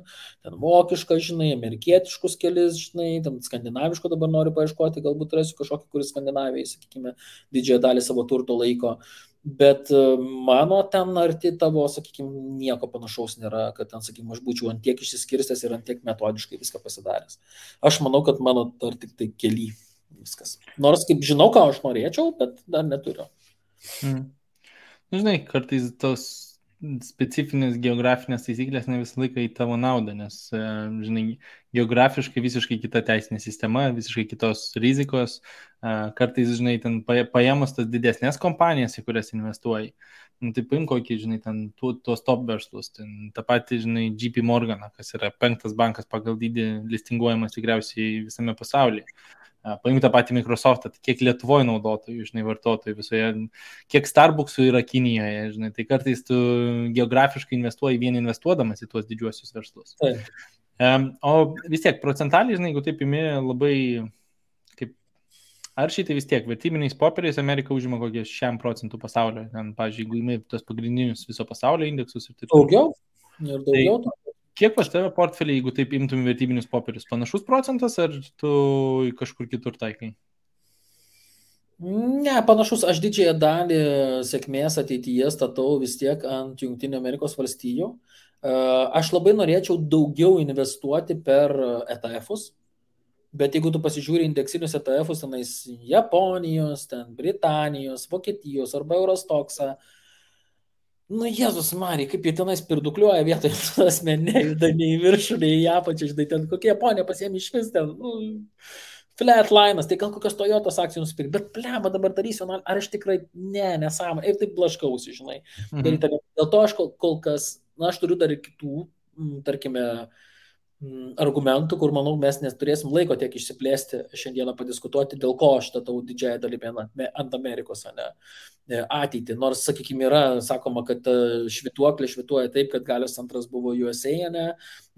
ten vokišką, žinai, amerikietiškus kelis, žinai, ten skandinaviško dabar noriu paieškoti, galbūt rasiu kažkokį, kuris Skandinavijai, sakykime, didžiąją dalį savo turto laiko. Bet mano ten arti tavo, sakykime, nieko panašaus nėra, kad ten, sakykime, aš būčiau ant tiek išsiskirstęs ir ant tiek metodiškai viską pasidaręs. Aš manau, kad mano dar tik tai keli. Viskas. Nors kaip žinau, ką aš norėčiau, bet dar neturiu. Žinai, kartais tos specifinės geografinės taisyklės ne visą laiką į tavo naudą, nes, žinai, geografiškai visiškai kita teisinė sistema, visiškai kitos rizikos. Kartais, žinai, ten paėmus tas didesnės kompanijas, į kurias investuoji, tai paim kokį, žinai, ten tuos top verslus, ten tą patį, žinai, JP Morgan, kas yra 5. bankas pagal dydį listinguojamas tikriausiai visame pasaulyje. Paimti tą patį Microsoftą, kiek Lietuvoje naudotojų, žinai, vartotojų visoje, kiek Starbucksų yra Kinijoje, žinai, tai kartais tu geografiškai investuoji vien investuodamas į tuos didžiuosius verslus. O vis tiek, procentaliai, žinai, jeigu taip imi labai, kaip, ar šitai vis tiek, vertybiniais popieriais Amerika užima kokie 6% pasaulio, ten, pavyzdžiui, jeigu imi tos pagrindinius viso pasaulio indeksus ir taip. Daugiau? Ir daugiau? Tai, kiek pas tave portfelį, jeigu taip imtum vertybinius popierius, panašus procentas, ar tu kažkur kitur taikai? Ne, panašus. Aš didžiąją dalį sėkmės ateityje statau vis tiek ant Jungtinių Amerikos valstijų. Aš labai norėčiau daugiau investuoti per ETF-us, bet jeigu tu pasižiūri indeksinius ETF-us, tenais Japonijos, ten Britanijos, Vokietijos arba Eurostoksą, nu, Jėzus Marija, kaip jie tenais pirdukliuoja vietoje, asmenė, juda nei į viršų, nei į apačią, žinai, ten kokie Japonija pasiėmė iš vis ten, flatlinas, tai gal kokios Toyotos akcijų nusipirkti, bet plema dabar darysiu, ar aš tikrai, nesąmonė, ir taip blaškausi, žinai. Dėl to aš kol kas, aš turiu dar ir kitų, tarkime, argumentų, kur, manau, mes neturėsim laiko tiek išsiplėsti šiandieną padiskutuoti, dėl ko aš statau didžiąją dalimi ant Amerikos, ne ateitį. Nors, sakykime, yra sakoma, kad švytuoklė švytuoja taip, kad Galios centras buvo USA, ne,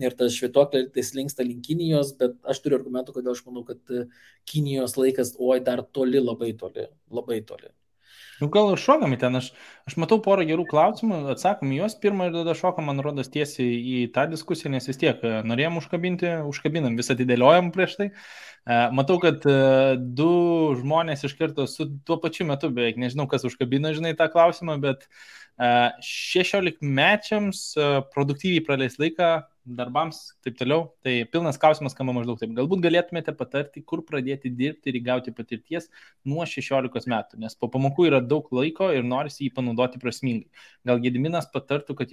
ir tas švytuoklė tai slinksta link Kinijos, bet aš turiu argumentų, kodėl aš manau, kad Kinijos laikas, dar toli, labai toli, labai toli. Nu, gal ir šokam į ten, aš matau porą gerų klausimų, atsakom į juos pirmą ir tada šokam, man rodos, tiesiai į tą diskusiją, nes vis tiek norėjom užkabinam, visą atidėliojom prieš tai. Matau, kad 2 žmonės iš karto su tuo pačiu metu, beveik nežinau, kas užkabino, žinai, tą klausimą, bet 16-mečiams produktyviai praleis laiką darbams, taip toliau. Tai pilnas klausimas skamba maždaug taip. Galbūt galėtumėte patarti, kur pradėti dirbti ir įgauti patirties nuo 16 metų, nes po pamokų yra daug laiko ir norisi jį panaudoti prasmingai. Gal Gediminas patartų, kad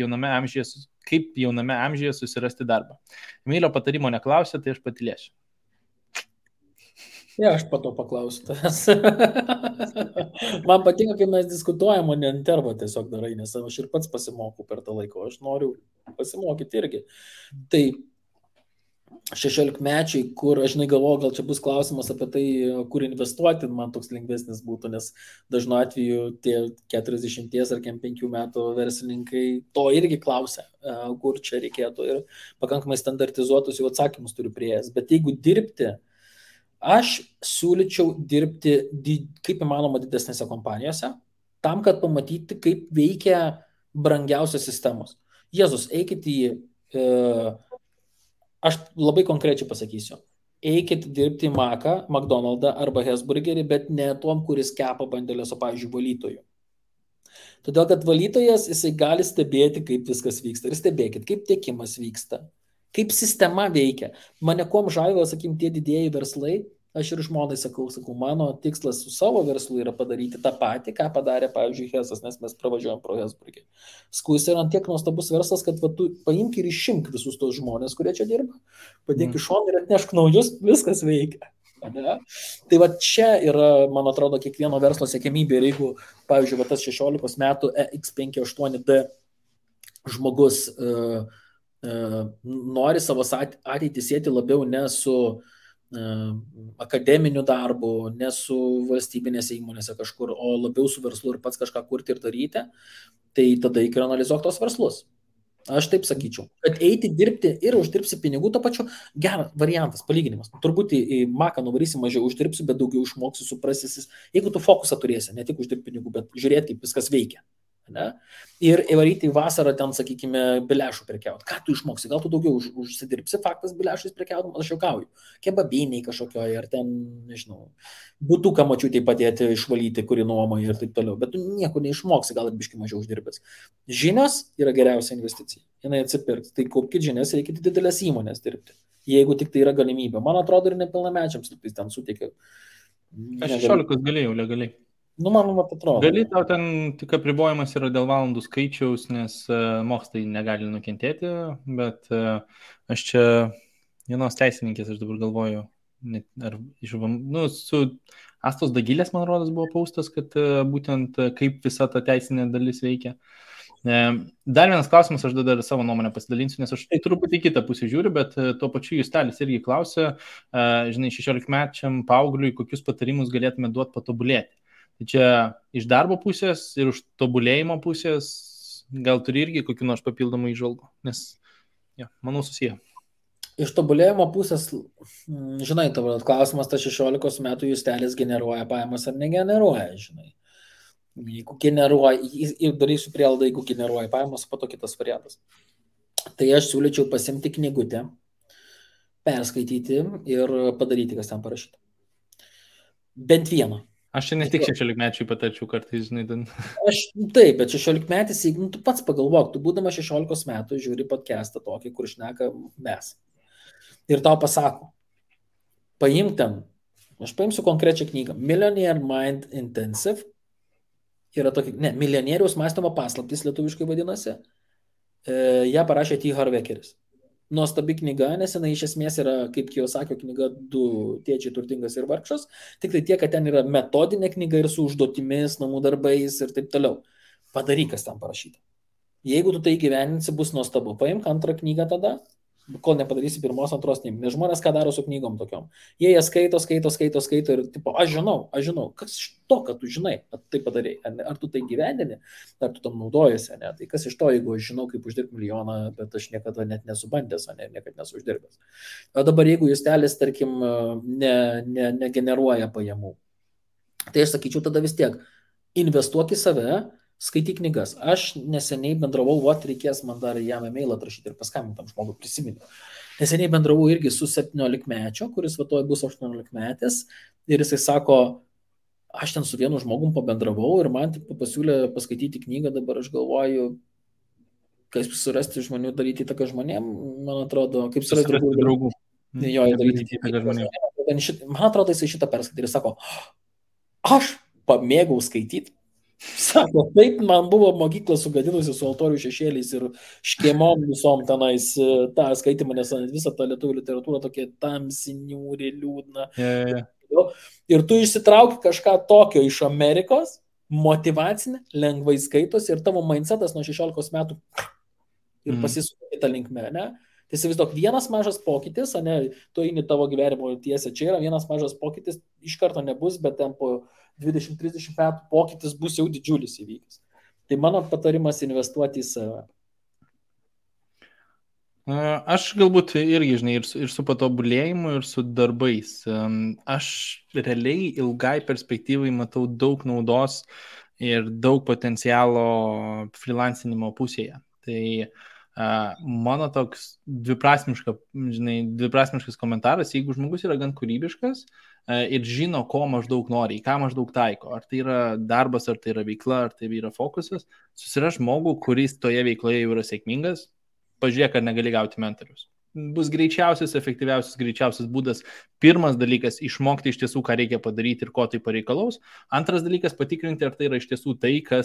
kaip jauname amžiuje susirasti darbą. Emilio patarimo neklausė, tai aš patylėsiu. Aš po to paklausiu tavęs. Man patinka, kai mes diskutuojam, o ne intervą tiesiog darai, nes aš ir pats pasimokau per tą laiką, aš noriu pasimokyti irgi. Tai 16-mečiai, kur aš galvoju, gal čia bus klausimas apie tai, kur investuoti, man toks lengvesnis būtų, nes dažnu atveju tie 40 ar 5 metų verslininkai to irgi klausia, kur čia reikėtų, ir pakankamai standartizuotus jau atsakymus turiu prieėjęs. Bet jeigu dirbti, aš siūlyčiau dirbti kaip įmanoma didesnėse kompanijose, tam, kad pamatyti, kaip veikia brangiausios sistemos. Jėzus, eikit į, aš labai konkrečiai pasakysiu, eikit dirbti į Maką, McDonald'ą arba Hesburgerį, bet ne tom, kuris kepa bandelės, o, pavyzdžiui, valytojų. Todėl, kad valytojas, jisai gali stebėti, kaip viskas vyksta. Ir stebėkit, kaip tiekimas vyksta, kaip sistema veikia. Mane kuom žavėjo, sakykim, tie didieji verslai. Aš ir žmonai sakau, mano tikslas su savo verslu yra padaryti tą patį, ką padarė, pavyzdžiui, Hesas, nes mes pravažiuojam pro Hesburgį. Skus yra tiek nuostabus verslas, kad tu paimk ir išimk visus tos žmonės, kurie čia dirba, padėk iš šono ir atnešk naujus, viskas veikia. Ne? Tai va čia yra, man atrodo, kiekvieno verslo siekiamybė. Ir jeigu, pavyzdžiui, va tas 16 metų X58D žmogus nori savo ateitį sėti labiau ne su akademiniu darbu, ne su valstybinėse įmonėse kažkur, o labiau su verslu ir pats kažką kurti ir daryti, tai tada reikia analizuoti tos verslus. Aš taip sakyčiau, kad eiti dirbti ir uždirbsi pinigų, to pačiu geras variantas, palyginimas. Turbūt į Maką nuvarysi, mažiau uždirbsi, bet daugiau išmoksi, suprasi, jeigu tu fokusą turėsi, ne tik uždirbti pinigų, bet žiūrėti, kaip viskas veikia. Ne? Ir įvaryti į vasarą ten, sakykime, bilešų prekiauti. Ką tu išmoksi? Gal tu daugiau užsidirbsi faktas bilešais prekiauti, aš juokauju. Kebabiniai kažkokioje, ar ten, nežinau, butuką mačiutei padėti išvalyti, kuri nuomoja ir taip toliau. Bet tu nieko neišmoksi, gal ir biškai mažiau uždirbęs. Žinios yra geriausia investicija. Jinai atsipirks. Tai kaupkite žinias, reikia didelės įmonės dirbti. Jeigu tik tai yra galimybė. Man atrodo, ir nepilnamečiams ten suteikia. Aš 16 galėjau legaliai. Nu, man atrodo. Gali, tau ten tik apribojimas yra dėl valandų skaičiaus, nes mokslai negali nukentėti, bet aš čia vienos teisininkės, aš dabar galvoju, ar su Astos Dagilės, man rodos, buvo paustas, kad būtent kaip visa ta teisinė dalis veikia. Dar vienas klausimas, aš dar savo nuomonę pasidalinsiu, nes aš truputį kitą pusę žiūriu, bet tuo pačiu Justelis irgi klausė, žinai, 16-mečiam paaugliui, kokius patarimus galėtume duoti patobulėti. Tai čia iš darbo pusės ir už tobulėjimo pusės gal turi irgi kokių nors papildomų įžvalgų, nes, manau, susiję. Iš tobulėjimo pusės, žinai, tavo klausimas, ta 16 metų Justelis generuoja pajamas ar negeneruoja, žinai. Jeigu generuoja, ir darysiu prielaidą, jeigu generuoja pajamas, po to kitas variantas. Tai aš siūlyčiau pasimti knygutę, perskaityti ir padaryti, kas ten parašyta. Bent vieną. Aš čia ne tik 16-mečiui patarčiau kartais, žinai, ten. Taip, bet 16-metis, jeigu tu pats pagalvok, tu būdama 16 metų žiūri podcastą tokį, kur šneka mes. Ir tau pasako, paimk ten, aš paimsiu konkrečią knygą, Millionaire Mind Intensive, yra tokia, milijonieriaus mąstymo paslaptys lietuviškai vadinasi, ją parašė T. Harvekeris. Nuostabi knyga, nes jinai iš esmės yra, kaip Kiyosakio knyga, Du tėčiai turtingas ir vargšas, tik tai tiek, kad ten yra metodinė knyga ir su užduotimis, namų darbais ir taip toliau. Padaryk, kas ten parašyta. Jeigu tu tai gyveninsi, bus nuostabu. Paimk antrą knygą tada, kol nepadarysi pirmos, antros, nes žmonės ką daro su knygom tokiom. Jie skaito ir tipo, aš žinau, kas iš to, kad tu žinai, kad tai padarei, ar tu tai gyvendini, ar tu tam naudojasi, ne? Tai kas iš to, jeigu aš žinau, kaip uždirbti milijoną, bet aš niekada net nesubandęs, niekada nesu uždirbęs. O dabar jeigu Justelis, tarkim, negeneruoja pajamų, tai aš sakyčiau tada vis tiek, investuok į save, skaityk knygas. Aš neseniai bendravau, reikės man dar jam e-mailą atrašyti ir paskambinti tam žmogui, prisiminiau. Neseniai bendravau irgi su 17-mečio, kuris vatoj bus 18-metis ir jisai sako, aš ten su vienu žmogum pabendravau ir man pasiūlė paskaityti knygą, dabar aš galvoju, kaip surasti žmonių, daryti įtaką žmonėm, man atrodo, kaip surasti draugų. Jo, daryti įtaką žmonėm. Man atrodo, jisai šitą perskaitė ir sako, aš pamėgau skaityti. Sako, taip, man buvo mokykla sugadinusi su altorių šešėliais ir škėmom visom tenais tą skaitimą, nes visą tą lietuvių literatūrą tokia tamsi, niūri, liūdna. Ir tu išsitrauki kažką tokio iš Amerikos, motyvacinė, lengvai skaitosi ir tavo mindsetas nuo 16 metų ir pasisuka kitą linkmę, ne? Tai įsivaizduok, vienas mažas pokytis, tu eini tavo gyvenimo tiesę, čia yra vienas mažas pokytis, iš karto nebus, bet ten po 20-30 metų pokytis bus jau didžiulis įvykis. Tai mano patarimas investuoti į save. Aš galbūt irgi, žinai, ir su patobulėjimu, ir su darbais. Aš realiai ilgai perspektyvai matau daug naudos ir daug potencialo freelancinimo pusėje. Tai Mano toks dviprasmiškas komentaras, jeigu žmogus yra gan kūrybiškas ir žino, ko maždaug nori, į ką maždaug taiko, ar tai yra darbas, ar tai yra veikla, ar tai yra fokusas, susira žmogų, kuris toje veikloje jau yra sėkmingas, pažiūrėk, ar negali gauti mentorius. Bus greičiausias būdas. Pirmas dalykas - išmokti iš tiesų, ką reikia padaryti ir ko tai pareikalaus. Antras dalykas - patikrinti, ar tai yra iš tiesų tai, ką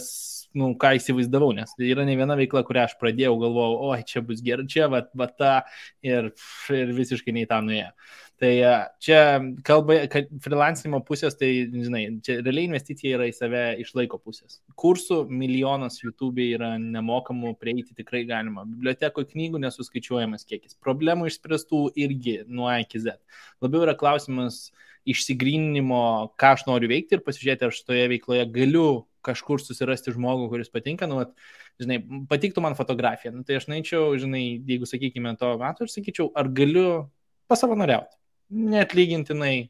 įsivaizdavau, nes tai yra ne viena veikla, kurią aš pradėjau, galvojau, oi, čia bus gerai, čia va ta ir visiškai nei tą nuėjo. Tai čia kalba, kad freelancinimo pusės, tai, žinai, čia realiai investicija yra į save iš laiko pusės. Kursų milijonas YouTube yra nemokamų, prieiti tikrai galima. Bibliotekoje knygų nesuskaičiuojamas kiekis. Problemų išspręstų irgi nuo A iki Z. Labiau yra klausimas išsigryninimo, ką aš noriu veikti ir pasižiūrėti, ar šitoje veikloje galiu kažkur susirasti žmogų, kuris patinka. Nu, žinai, patiktų man fotografija. Nu, tai aš načiau, žinai, jeigu sakykime to metu, aš sakyčiau, ar galiu pasavanoriauti. Neatlygintinai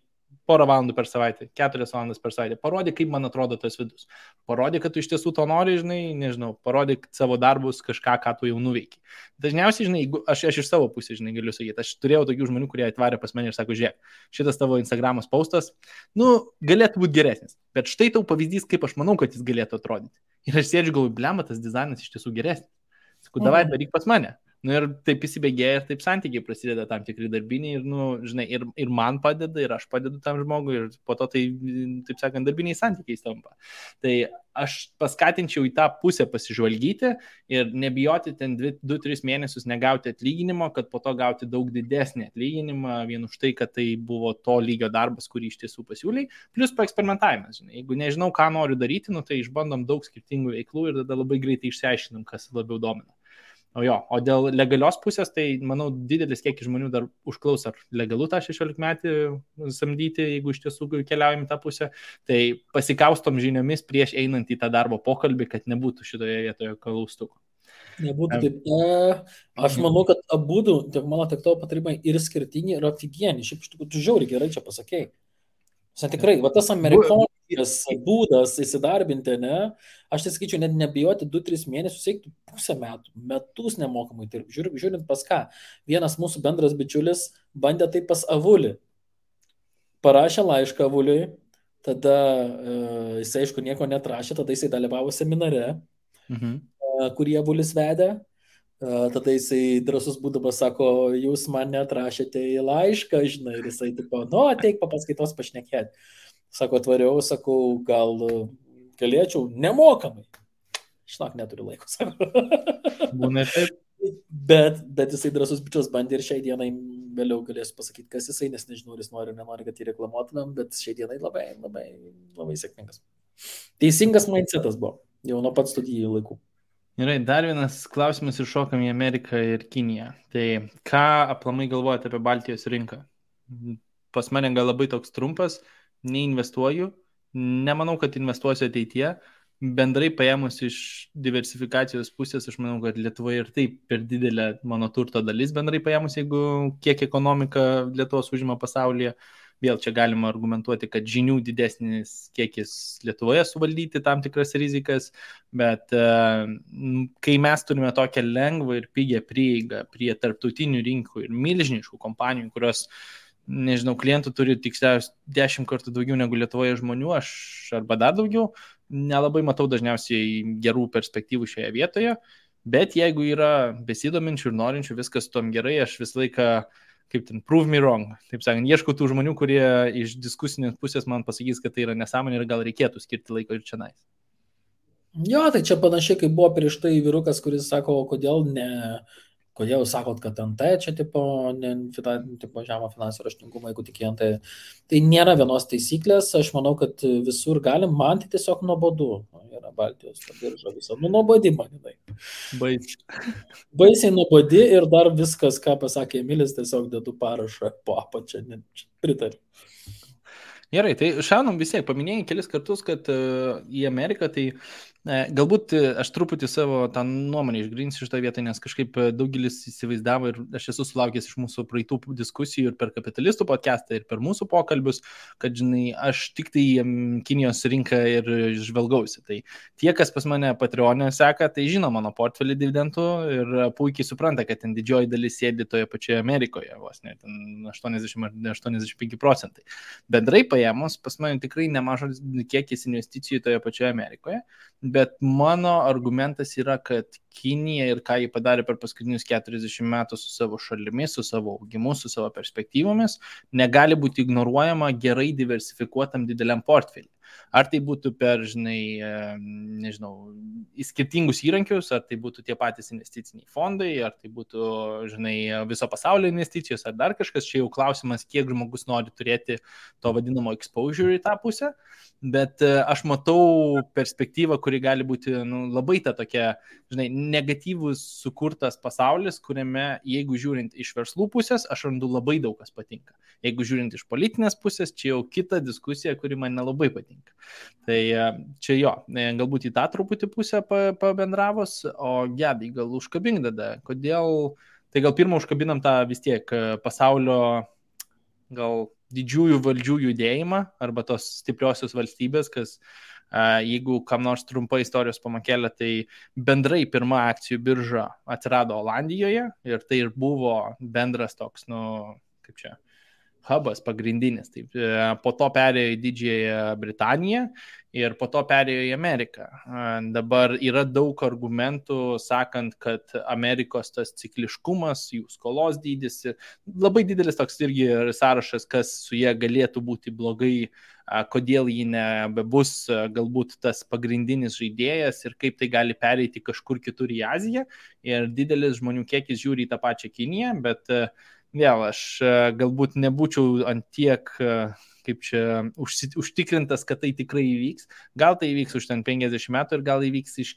4 valandų per savaitę, 4 valandas per savaitę. Parodė, kaip man atrodo tas vidus. Parodė, kad tu iš tiesų to nori, žinai, nežinau, parodė savo darbus kažką, ką tu jau nuveiki. Dažniausiai, žinai, aš iš savo pusės, žinai, galiu sakyti, aš turėjau tokių žmonių, kurie atvarė pas mane ir sako, žiūrėk, šitas tavo Instagramos postas, galėtų būti geresnis, bet štai tau pavyzdys, kaip aš manau, kad jis galėtų atrodyti. Ir aš sėdžiu, galvoju, blema, tas dizainas iš tiesų geresnis. Sakau, davai, daryk pas mane. Ir taip įsibėgėja ir taip santykiai prasideda tam tikri darbiniai ir, žinai, ir man padeda, ir aš padedu tam žmogui, ir po to tai, taip sakant, darbiniai santykiai tampa. Tai aš paskatinčiau į tą pusę pasižvalgyti ir nebijoti ten 2-3 mėnesius negauti atlyginimo, kad po to gauti daug didesnį atlyginimą vien už tai, kad tai buvo to lygio darbas, kurį iš tiesų pasiūlai, plus paeksperimentavimas. Žinai. Jeigu nežinau, ką noriu daryti, tai išbandom daug skirtingų veiklų ir tada labai greitai išsiaiškinam, kas labiau domina. O dėl legalios pusės, tai, manau, didelis kiekis žmonių dar užklaus, ar legalu tą 16 metį samdyti, jeigu iš tiesų keliaujam į tą pusę. Tai pasikaustom žiniomis prieš einant į tą darbo pokalbį, kad nebūtų šitoje vietoje klaustukų. Nebūtų taip. Aš manau, kad abudu, tiek mano, tiek tavo patarimai ir skirtingi, ir aфиgieni. Šiaip iš tikrųjų, tu žiauriai gerai čia pasakėjai. Tikrai, va tas amerikoniškas būdas įsidarbinti, ne? Aš tai sakyčiau, net nebijoti 2-3 mėnesius, eiktų pusę metų, metus nemokamai dirbti. Žiūrint pas ką. Vienas mūsų bendras bičiulis bandė tai pas Avulį. Parašė laišką Avuliui, tada jisai, aišku, nieko netrašė, tada jisai dalyvavo seminare, kurį Avulis vedė. Tada jisai drąsus būdamas sako, jūs man neatrašėte į laišką, žinai, ir jisai tipo, ateik papaskaitos pašnekėti. Sako, atvariau, sakau, gal galėčiau nemokamai. Šnak, neturiu laiko, sako. Būna taip. Bet jisai drąsus bičias bandė ir šiai dienai vėliau galėsiu pasakyti, kas jisai, nes nežinau, ar jis nori ar nenori, kad jį reklamuotumėm, bet šiai dienai labai, labai, labai sėkmingas. Teisingas mindsetas buvo, jau nuo pat studijų laikų. Gerai, dar vienas klausimas ir šokam į Ameriką ir Kiniją. Tai ką aplamai galvojate apie Baltijos rinką? Pas mane gal labai toks trumpas, neinvestuoju, nemanau, kad investuosiu ateityje. Bendrai paėmus iš diversifikacijos pusės, aš manau, kad Lietuvoje ir taip per didelė mano turto dalis bendrai paėmus, jeigu kiek ekonomika Lietuvos užima pasaulyje. Vėl čia galima argumentuoti, kad žinių didesnis kiekis Lietuvoje suvaldyti tam tikras rizikas, bet kai mes turime tokią lengvą ir pigią prieigą prie tarptautinių rinkų ir milžiniškų kompanijų, kurios, nežinau, klientų turi tiksliausiai 10 kartų daugiau negu Lietuvoje žmonių, aš arba dar daugiau, nelabai matau dažniausiai gerų perspektyvų šioje vietoje, bet jeigu yra besidominčių ir norinčių, viskas tom gerai, aš visą laiką kaip ten, prove me wrong. Taip sakant, ieškau tų žmonių, kurie iš diskusinės pusės man pasakys, kad tai yra nesąmonė ir gal reikėtų skirti laiko ir čia nais. Jo, tai čia panašiai, kaip buvo prieš tai vyrukas, kuris sako, kodėl sakot, kad NT čia tipo žemo finansų raštingumą, jeigu tik NT. Tai nėra vienos taisyklės, aš manau, kad visur galim, man tai tiesiog nuobodu. Yra Baltijos birža visą. Nuobodi manai. Baisiai nuobodi ir dar viskas, ką pasakė Emilis, tiesiog dedu parašą po apačią, pritariu. Gerai, tai šaunam visiek, paminėjai kelis kartus, kad į Ameriką tai Galbūt aš truputį savo tą nuomonę išgrinsiu šitą vietą, nes kažkaip daugelis įsivaizdavo ir aš esu sulaukęs iš mūsų praeitų diskusijų ir per kapitalistų podcastą, ir per mūsų pokalbius, kad, žinai, aš tik tai Kinijos rinką ir žvelgausi. Tai tie, kas pas mane Patreon'e seka, tai žino mano portfelį dividendų ir puikiai supranta, kad ten didžioji dalis sėdi toje pačioje Amerikoje, vos net 80-85%. Bendrai paėmus, pas mane tikrai nemažas kiekis investicijų toje pačioje Amerikoje. Bet mano argumentas yra, kad Kinija ir ką jį padarė per paskutinius 40 metų su savo šalimis, su savo augimu, su savo perspektyvomis, negali būti ignoruojama gerai diversifikuotam dideliam portfelį. Ar tai būtų per, žinai, nežinau, skirtingus įrankius, ar tai būtų tie patys investiciniai fondai, ar tai būtų, žinai, viso pasaulio investicijos, ar dar kažkas, čia jau klausimas, kiek žmogus nori turėti to vadinamo exposure į tą pusę. Bet aš matau perspektyvą, kuri gali būti labai ta tokia, žinai, negatyvus sukurtas pasaulis, kuriame, jeigu žiūrint iš verslų pusės, aš randu labai daug kas patinka. Jeigu žiūrint iš politinės pusės, čia jau kita diskusija, kuri man nelabai patinka. Tai čia jo, galbūt į tą truputį pusę pabendravus, o Gedai, gal užkabink tada, kodėl, tai gal pirmą užkabinam tą vis tiek pasaulio gal didžiųjų valdžių judėjimą arba tos stipriosios valstybės, kas jeigu kam nors trumpa istorijos pamakėlė, tai bendrai pirma akcijų birža atsirado Olandijoje ir tai ir buvo bendras toks, kaip čia, hubas pagrindinis. Taip, po to perėjo į Didžiąją Britaniją ir po to perėjo į Ameriką. Dabar yra daug argumentų, sakant, kad Amerikos tas cikliškumas, jų skolos dydis, labai didelis toks irgi sąrašas, kas su jie galėtų būti blogai, kodėl ji nebebus galbūt tas pagrindinis žaidėjas ir kaip tai gali pereiti kažkur kitur į Aziją. Ir didelis žmonių kiekis žiūri į tą pačią Kiniją, bet vėl aš galbūt nebūčiau ant tiek, kaip čia, užtikrintas, kad tai tikrai įvyks. Gal tai įvyks už ten 50 metų ir gal įvyks iš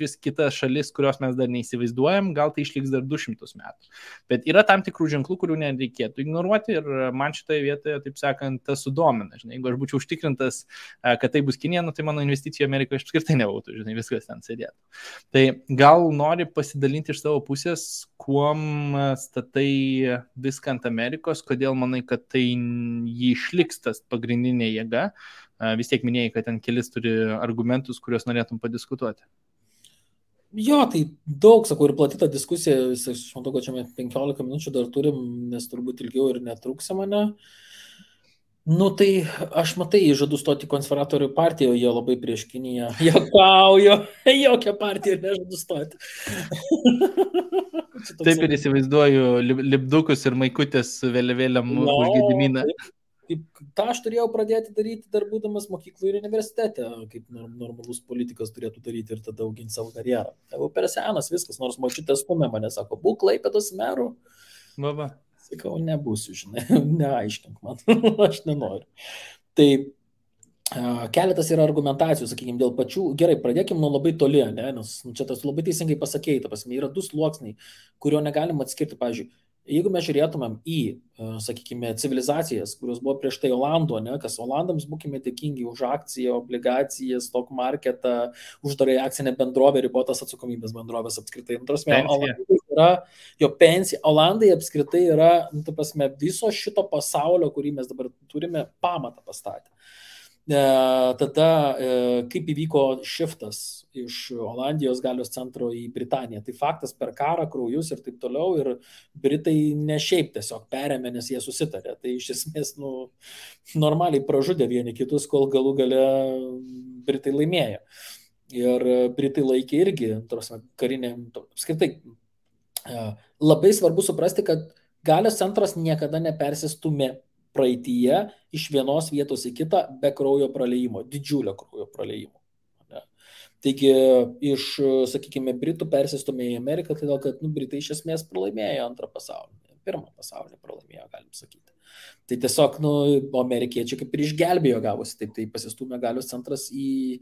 vis kitas šalis, kurios mes dar neįsivaizduojam, gal tai išliks dar 200 metų. Bet yra tam tikrų ženklų, kurių nereikėtų ignoruoti ir man šitoje vietoje, taip sakant, tas sudomina. Žinai, jeigu aš būčiau užtikrintas, kad tai bus Kinija, tai mano investicija Amerikoje apskritai nebūtų, žinai, viskas ten sėdėtų. Tai gal nori pasidalinti iš savo pusės, kuom statai viską ant Amerikos, kodėl manai, kad tai jį išliks tas pagrindinė jėga. Vis tiek minėjai, kad ten kelis turi argumentus, kuriuos norėtum padiskutuoti. Jo, tai daug, sakau, ir plati ta diskusija, aš matau, kad čia 15 minučių dar turim, nes turbūt ilgiau ir netrūksia mane. Tai aš matai, žadu stoti konservatorių partiją, jie labai prieš Kiniją. Juokauju, jokia partija nežadu stoti. Taip ir įsivaizduoju lipdukus ir maikutės vėliavėliam už Gediminą. tą aš turėjau pradėti daryti dar būdamas mokyklų ir universitete, kaip normalus politikas turėtų daryti ir tada auginti savo karjerą. Tai per senas viskas, nors močiutė stumė mane, sako, būk Klaipėdos meru. Baba. Sakau, nebūsiu, žinai, neaiškink man, aš nenoriu. Tai keletas yra argumentacijų, sakykime, dėl pačių, gerai, pradėkime nuo labai toli, ne? Nes čia tas labai teisingai pasakei, ta prasme, yra du sluoksniai, kurio negalim atskirti, pavyzdžiui, jeigu mes žiūrėtumėm į, sakykime, civilizacijas, kurios buvo prieš tai Olando, ne, kas Olandams būkime dėkingi už akciją, obligaciją, stock marketą, uždarai akcinę bendrovę, ribotas atsakomybės bendrovės apskritai. Olandai yra jo pensija. Olandai apskritai yra, ta prasme, viso šito pasaulio, kurį mes dabar turime, pamatą pastatę. Tada kaip įvyko šiftas iš Olandijos galios centro į Britaniją. Tai faktas per karą, kraujus ir taip toliau, ir Britai ne šiaip tiesiog perėmė, nes jie susitarė. Tai iš esmės normaliai pražudė vieni kitus, kol galų gale Britai laimėjo. Ir Britai laikė irgi, karinė, apskritai, labai svarbu suprasti, kad galios centras niekada nepersistumė praeityje iš vienos vietos į kitą be kraujo praliejimo, didžiulio kraujo praliejimo. Taigi iš, sakykime, Britų persistumė į Ameriką, todėl kad Britai iš esmės pralaimėjo antrą pasaulinį, pirmą pasaulinį pralaimėjo, galim sakyti. Tai tiesiog, amerikiečiai kaip ir išgelbėjo gavosi, taip, tai pasistumė galios centras į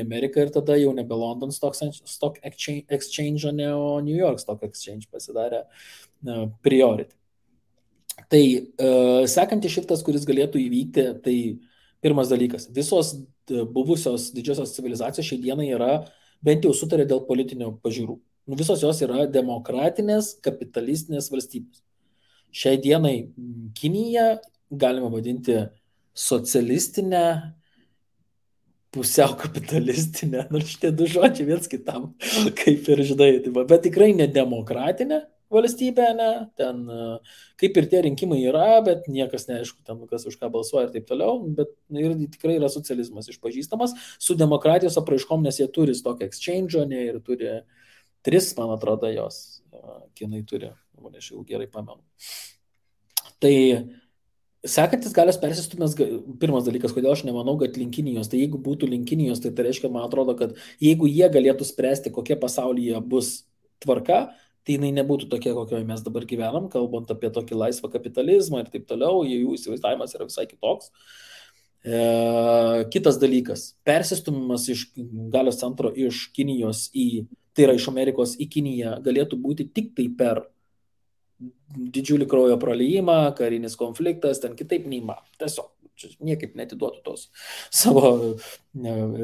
Ameriką ir tada jau nebe London Stock Exchange, o New York Stock Exchange pasidarė priority. Tai sekantis šiftas, kuris galėtų įvykti, tai pirmas dalykas. Visos buvusios didžiosios civilizacijos šiai dienai yra bent jau sutarė dėl politinio pažiūrų. Visos jos yra demokratinės, kapitalistinės valstybės. Šiai dienai Kinija galima vadinti socialistinę, pusiau kapitalistinę, nors šitie du žodžiai viens kitam, kaip ir žinai, bet tikrai ne demokratinė valstybė, ne, ten kaip ir tie rinkimai yra, bet niekas neaišku, ten kas už ką balsuoja ir taip toliau, bet ir tikrai yra socializmas išpažįstamas su demokratijos apraiškom, nes jie turi stock exchange, ne, ir turi 3, man atrodo, jos, kinai turi, aš jau gerai pamenu. Tai sekantis galios persistumės, pirmas dalykas, kodėl aš nemanau, kad link Kinijos, tai jeigu būtų link Kinijos, tai reiškia, man atrodo, kad jeigu jie galėtų spręsti, kokia pasaulyje bus tvarka, tai jinai nebūtų tokia, kokioje mes dabar gyvenam, kalbant apie tokį laisvą kapitalizmą ir taip toliau, jų įsivaizdavimas yra visai kitoks. Kitas dalykas, persistumimas iš galios centro iš Kinijos tai yra iš Amerikos į Kiniją, galėtų būti tik tai per didžiulį kraujo praliejimą, karinis konfliktas, ten kitaip neįmanoma. Tiesiog niekaip netiduotų tos savo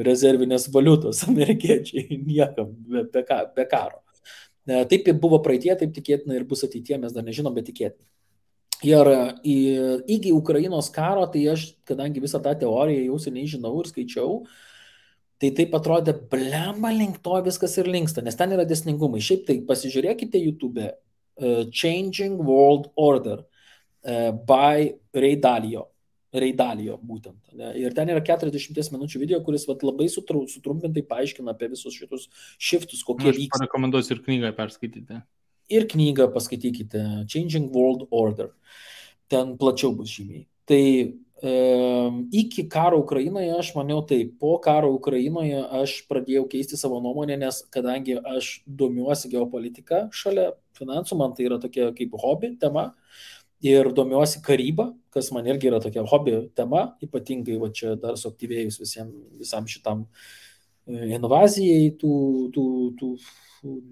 rezervinės valiutos amerikiečiai niekam be karo. Taip buvo praeitie, taip tikėtina ir bus ateitie, mes dar nežinom, bet tikėtina. Ir iki Ukrainos karo, tai aš, kadangi visą tą teoriją jau seniai žinau ir skaičiau, tai taip atrodė, blemba, link to viskas ir linksta, nes ten yra dėsningumai. Šiaip tai pasižiūrėkite YouTube Changing World Order by Ray Dalio būtent. Ne? Ir ten yra 40 minučių video, kuris labai sutrumpintai paaiškina apie visus šitus shiftus, kokie vyksta. Aš parekomenduosiu ir knygą perskaityti. Ir knygą paskaitykite, Changing World Order. Ten plačiau bus žymiai. Tai iki karo Ukrainoje aš maniau taip, po karo Ukrainoje aš pradėjau keisti savo nuomonę, nes kadangi aš domiuosi geopolitiką šalia finansų, man tai yra tokia kaip hobi tema ir domiuosi karybą, kas man irgi yra tokia hobi tema, ypatingai va čia dar suaktyvėjus visam šitam invazijai, tų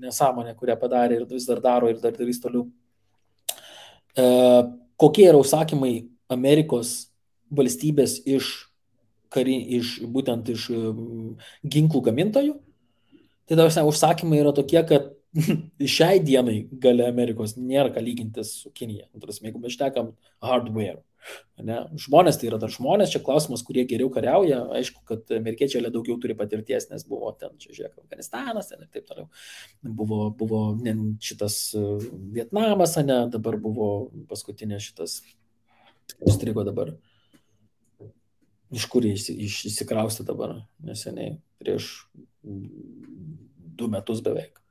nesąmonė, kurią padarė ir vis dar daro ir dar darys toliau. Kokie yra užsakymai Amerikos valstybės būtent iš ginklų gamintojų? Tai dabar užsakymai yra tokie, kad šiai dienai galia Amerikos nėra ką lygintis su Kinija. Jeigu mes šnekam hardware. Ne? Žmonės tai yra dar žmonės, čia klausimas, kurie geriau kariauja. Aišku, kad amerikiečiai daugiau turi patirties, nes buvo ten, čia žiūrėk, Afganistanas ten ir taip toliau. Buvo šitas Vietnamas, ne, dabar buvo paskutinė šitas, įstrigo dabar. Iš kur išsikraustė dabar neseniai, prieš 2 metus beveik.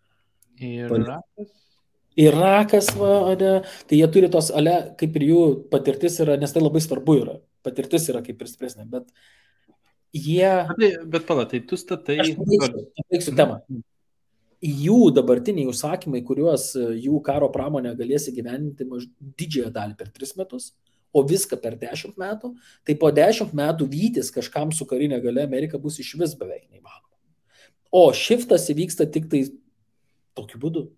Irakas, tai jie turi tos, kaip ir jų patirtis yra, nes tai labai svarbu yra. Patirtis yra kaip ir stipresnė, bet jie... Bet pala, tai tu statai... Aš pabaigsiu temą. Jų dabartiniai užsakymai, kuriuos jų karo pramonė galės įgyvendinti didžiąją dalį per 3 metus, o viską per 10 metų, tai po 10 metų vytis kažkam su karinė galia Amerika bus iš vis beveik neįmanoma. O shiftas įvyksta tik tai tokiu būdu.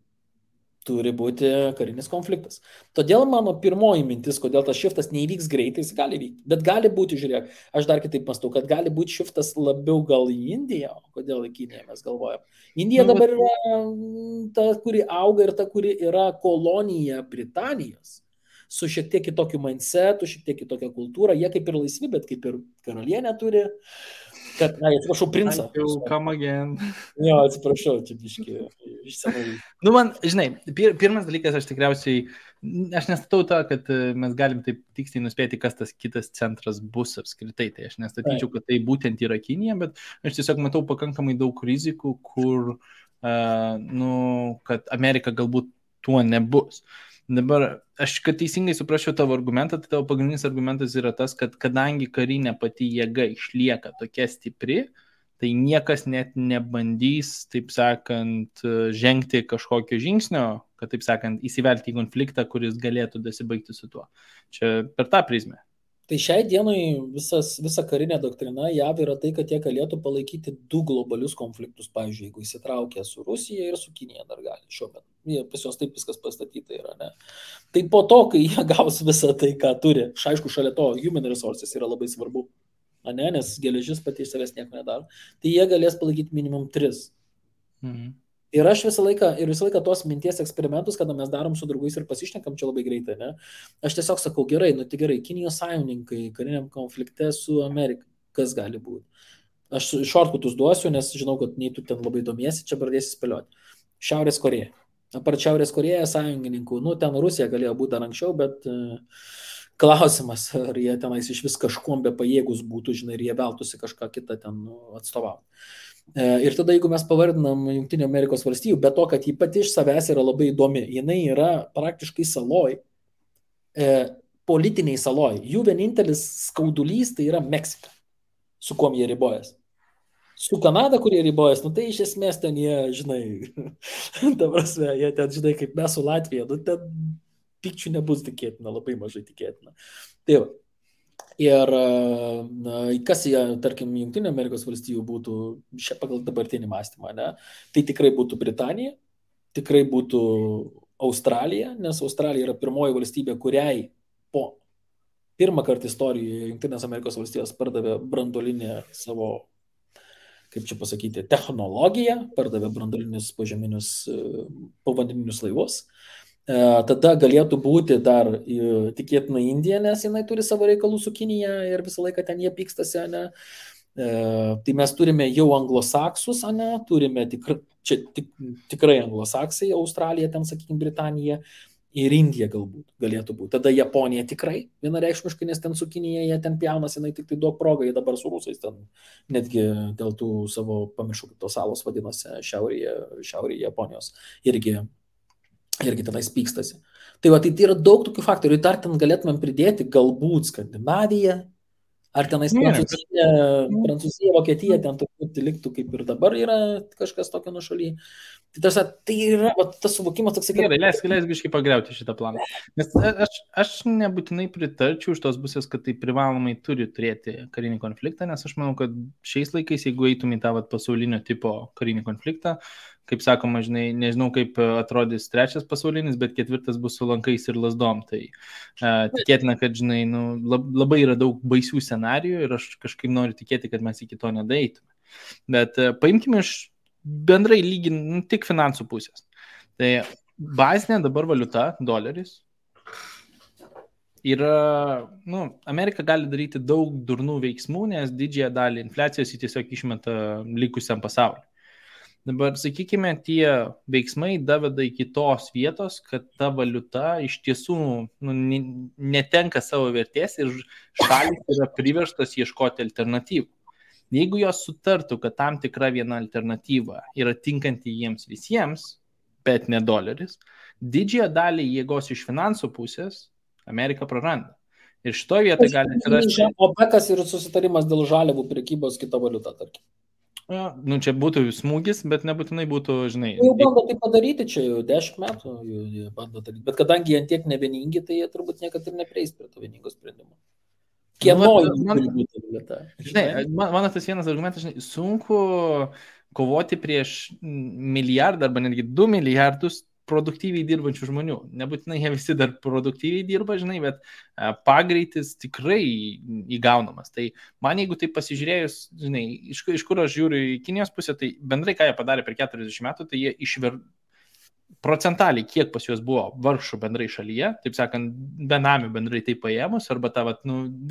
Turi būti karinis konfliktas. Todėl mano pirmoji mintis, kodėl tas shiftas neįvyks greitai, jis gali vykti. Bet gali būti, žiūrėk, aš dar kitaip mąstau, kad gali būti shiftas labiau gal į Indiją, o kodėl į Kiniją mes galvojam. Indija dabar yra ta, kuri auga ir ta, kuri yra kolonija Britanijos. Su šiek tiek kitokiu mindsetu, šiek tiek kitokia kultūra. Jie kaip ir laisvi, bet kaip ir karalienė turi. Atsiprašau, princą. Come again. Jo, atsiprašau, čia biški iš senų. Nu, man, žinai, pirmas dalykas, aš tikriausiai, aš nestatau tą, kad mes galim taip tiksliai nuspėti, kas tas kitas centras bus apskritai. Tai aš nestatyčiau, kad tai būtent yra Kinija, bet aš tiesiog matau pakankamai daug rizikų, kur, kad Amerika galbūt tuo nebus. Dabar, aš kad teisingai suprasčiau tavo argumentą, tai tavo pagrindinis argumentas yra tas, kad kadangi karinė pati jėga išlieka tokia stipri, tai niekas net nebandys, taip sakant, žengti kažkokio žingsnio, kad, taip sakant, įsivelti į konfliktą, kuris galėtų dasibaigti su tuo. Čia per tą prizmę. Tai šiai dienai visa karinė doktrina JAV yra tai, kad jie galėtų palaikyti 2 globalius konfliktus, pavyzdžiui, jeigu įsitraukia su Rusija ir su Kinija dar gali šiuo metu. Pas jos taip viskas pastatyta yra, ne? Tai po to, kai jie gaus visą tai, ką turi, aišku, šalia to human resources yra labai svarbu, ne? Nes geležis pati iš savęs nieko nedaro, tai jie galės palaikyti minimum 3 Ir aš visą laiką tos minties eksperimentus, kada mes darom su draugais ir pasišnekam čia labai greitai, ne? Aš tiesiog sakau, gerai, tai gerai, Kinijos sąjungininkai kariniam konflikte su Amerika, kas gali būti? Aš šortkutus duosiu, nes žinau, kad nei tu ten labai domiesi, čia pradėsi spėlioti. Šiaurės Koreja. Apart Šiaurės Koreja sąjungininkų, ten Rusija galėjo būti dar anksčiau, bet klausimas, ar jie tenais iš vis kažkuom be pajėgus būtų, žinai, ir jie veltųsi kažką kitą ten atstovauti. Ir tada, jeigu mes pavardinam Jungtinių Amerikos valstijų, be to, kad ji pati iš savęs yra labai įdomi, jinai yra praktiškai saloj, politiniai saloj. Jų vienintelis skaudulys tai yra Meksika, su kuom jie ribojas. Su Kanada, kurie ribojas, tai iš esmės ten jie, žinai, ta prasme, jie ten, žinai, kaip mes su Latvija, ten pykčių nebus tikėtina, labai mažai tikėtina. Tai va. Ir kas jie, tarkim, Jungtinių Amerikos valstijų būtų pagal dabartinį mąstymą, ne? Tai tikrai būtų Britanija, tikrai būtų Australija, nes Australija yra pirmoji valstybė, kuriai po pirmą kartą istorijoje Jungtinės Amerikos valstijos pardavė branduolinę savo, kaip čia pasakyti, technologiją, pardavė branduolinius požeminius povandeninius laivus. Tada galėtų būti dar tikėtina Indija, nes jinai turi savo reikalų su Kinija ir visą laiką ten jie pykstasi, ne? Tai mes turime jau anglosaksus, ne? Turime tikrai anglosaksai, Australija, ten, sakykime, Britanija ir Indija galbūt galėtų būti. Tada Japonija tikrai vienareikšmiškai, nes ten su Kinija jie ten pjaunas, jinai tik tai duok progą, jie dabar su rusais ten netgi dėl tų savo, pamiršau, kaip tos salos vadinosi, šiaurėje Japonijos irgi tenais pykstasi. Tai va, tai yra daug tokių faktorių. Dar ten galėtumėm pridėti galbūt Skandinaviją, ar tenais Prancūzija, Vokietija, ten turbūt liktų kaip ir dabar yra kažkas tokio nušaly. Tai yra tas suvokimas toks... Gerai, leisk biškai pagriauti šitą planą. Nes aš nebūtinai pritarčiau iš tos pusės, kad tai privalomai turi turėti karinį konfliktą, nes aš manau, kad šiais laikais, jeigu eitum į tą pasaulinio tipo karinį konfliktą, kaip sakoma, žinai, nežinau, kaip atrodys trečias pasaulinis, bet ketvirtas bus su lankais ir lasdom. Tai tikėtina, kad, žinai, labai yra daug baisių scenarijų ir aš kažkaip noriu tikėti, kad mes iki to nedaeitume. Bet paimkime iš bendrai tik finansų pusės. Tai bazinė dabar valiuta, doleris, yra, Amerika gali daryti daug durnų veiksmų, nes didžiąją dalį infliacijos jį tiesiog išmeta likusiam pasauliu. Dabar, sakykime, tie veiksmai daveda iki tos vietos, kad ta valiuta iš tiesų netenka savo vertės ir šalys yra priverstos ieškoti alternatyvų. Jeigu jos sutartų, kad tam tikra viena alternatyva yra tinkanti jiems visiems, bet ne doleris, didžiąją dalį jėgos iš finansų pusės Amerika praranda. Ir šitoje vietoje gali atsirasti... OPEC-as ir susitarimas dėl žaliavų prekybos kita valiuta, tarkim. Čia būtų smūgis, bet nebūtinai būtų, žinai... Jau bando tai padaryti, čia jau 10 metų jie bando daryti, bet kadangi jie tiek nevieningi, tai jie turbūt niekad ir neprieis prie to vieningo sprendimo. Kieno turi būti vieta? Žinai, mano tas vienas argumentas, žinai, sunku kovoti prieš milijardą arba netgi 2 milijardus produktyviai dirbančių žmonių. Nebūtinai jie visi dar produktyviai dirba, žinai, bet pagreitis tikrai įgaunamas. Tai man, jeigu tai pasižiūrėjus, žinai, iš kur aš žiūriu į Kinijos pusę, tai bendrai, ką jie padarė per 40 metų, tai jie procentaliai, kiek pas juos buvo vargšų bendrai šalyje, taip sakant, benamių bendrai tai paėmus, arba ta,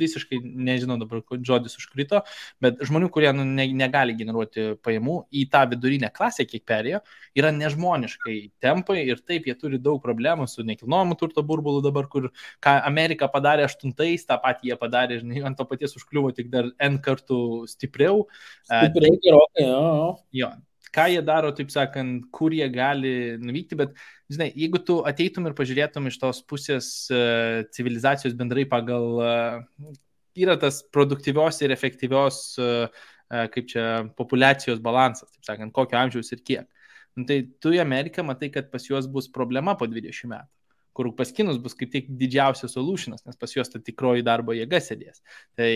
visiškai, nežinau dabar, žodis užkrito, bet žmonių, kurie negali generuoti pajamų, į tą vidurinę klasę, kiek perėjo, yra nežmoniškai tempai ir taip jie turi daug problemų su nekilnojamu turto burbulu dabar, kur ką Amerika padarė 8-ais, tą patį jie padarė, žinai, ant to paties užkliuvo tik dar N kartų stipriau. Gerokai, jo. Ką jie daro, taip sakant, kur jie gali nuvykti, bet, žinai, jeigu tu ateitum ir pažiūrėtum iš tos pusės civilizacijos bendrai pagal, yra tas produktyvios ir efektyvios, kaip čia, populiacijos balansas, taip sakant, kokio amžiaus ir kiek. Tai tu į Ameriką matai, kad pas juos bus problema po 20 metų, kur pas kinus bus kaip tik didžiausias solutionas, nes pas juos ta tikroji darbo jėga sėdės. Tai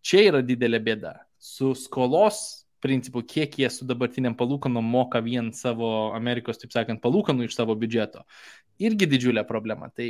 čia yra didelė bėda. Su skolos principų, kiek jie su dabartiniam palūkanom moka vien savo Amerikos, taip sakant, palūkanų iš savo biudžeto. Irgi didžiulė problema. Tai,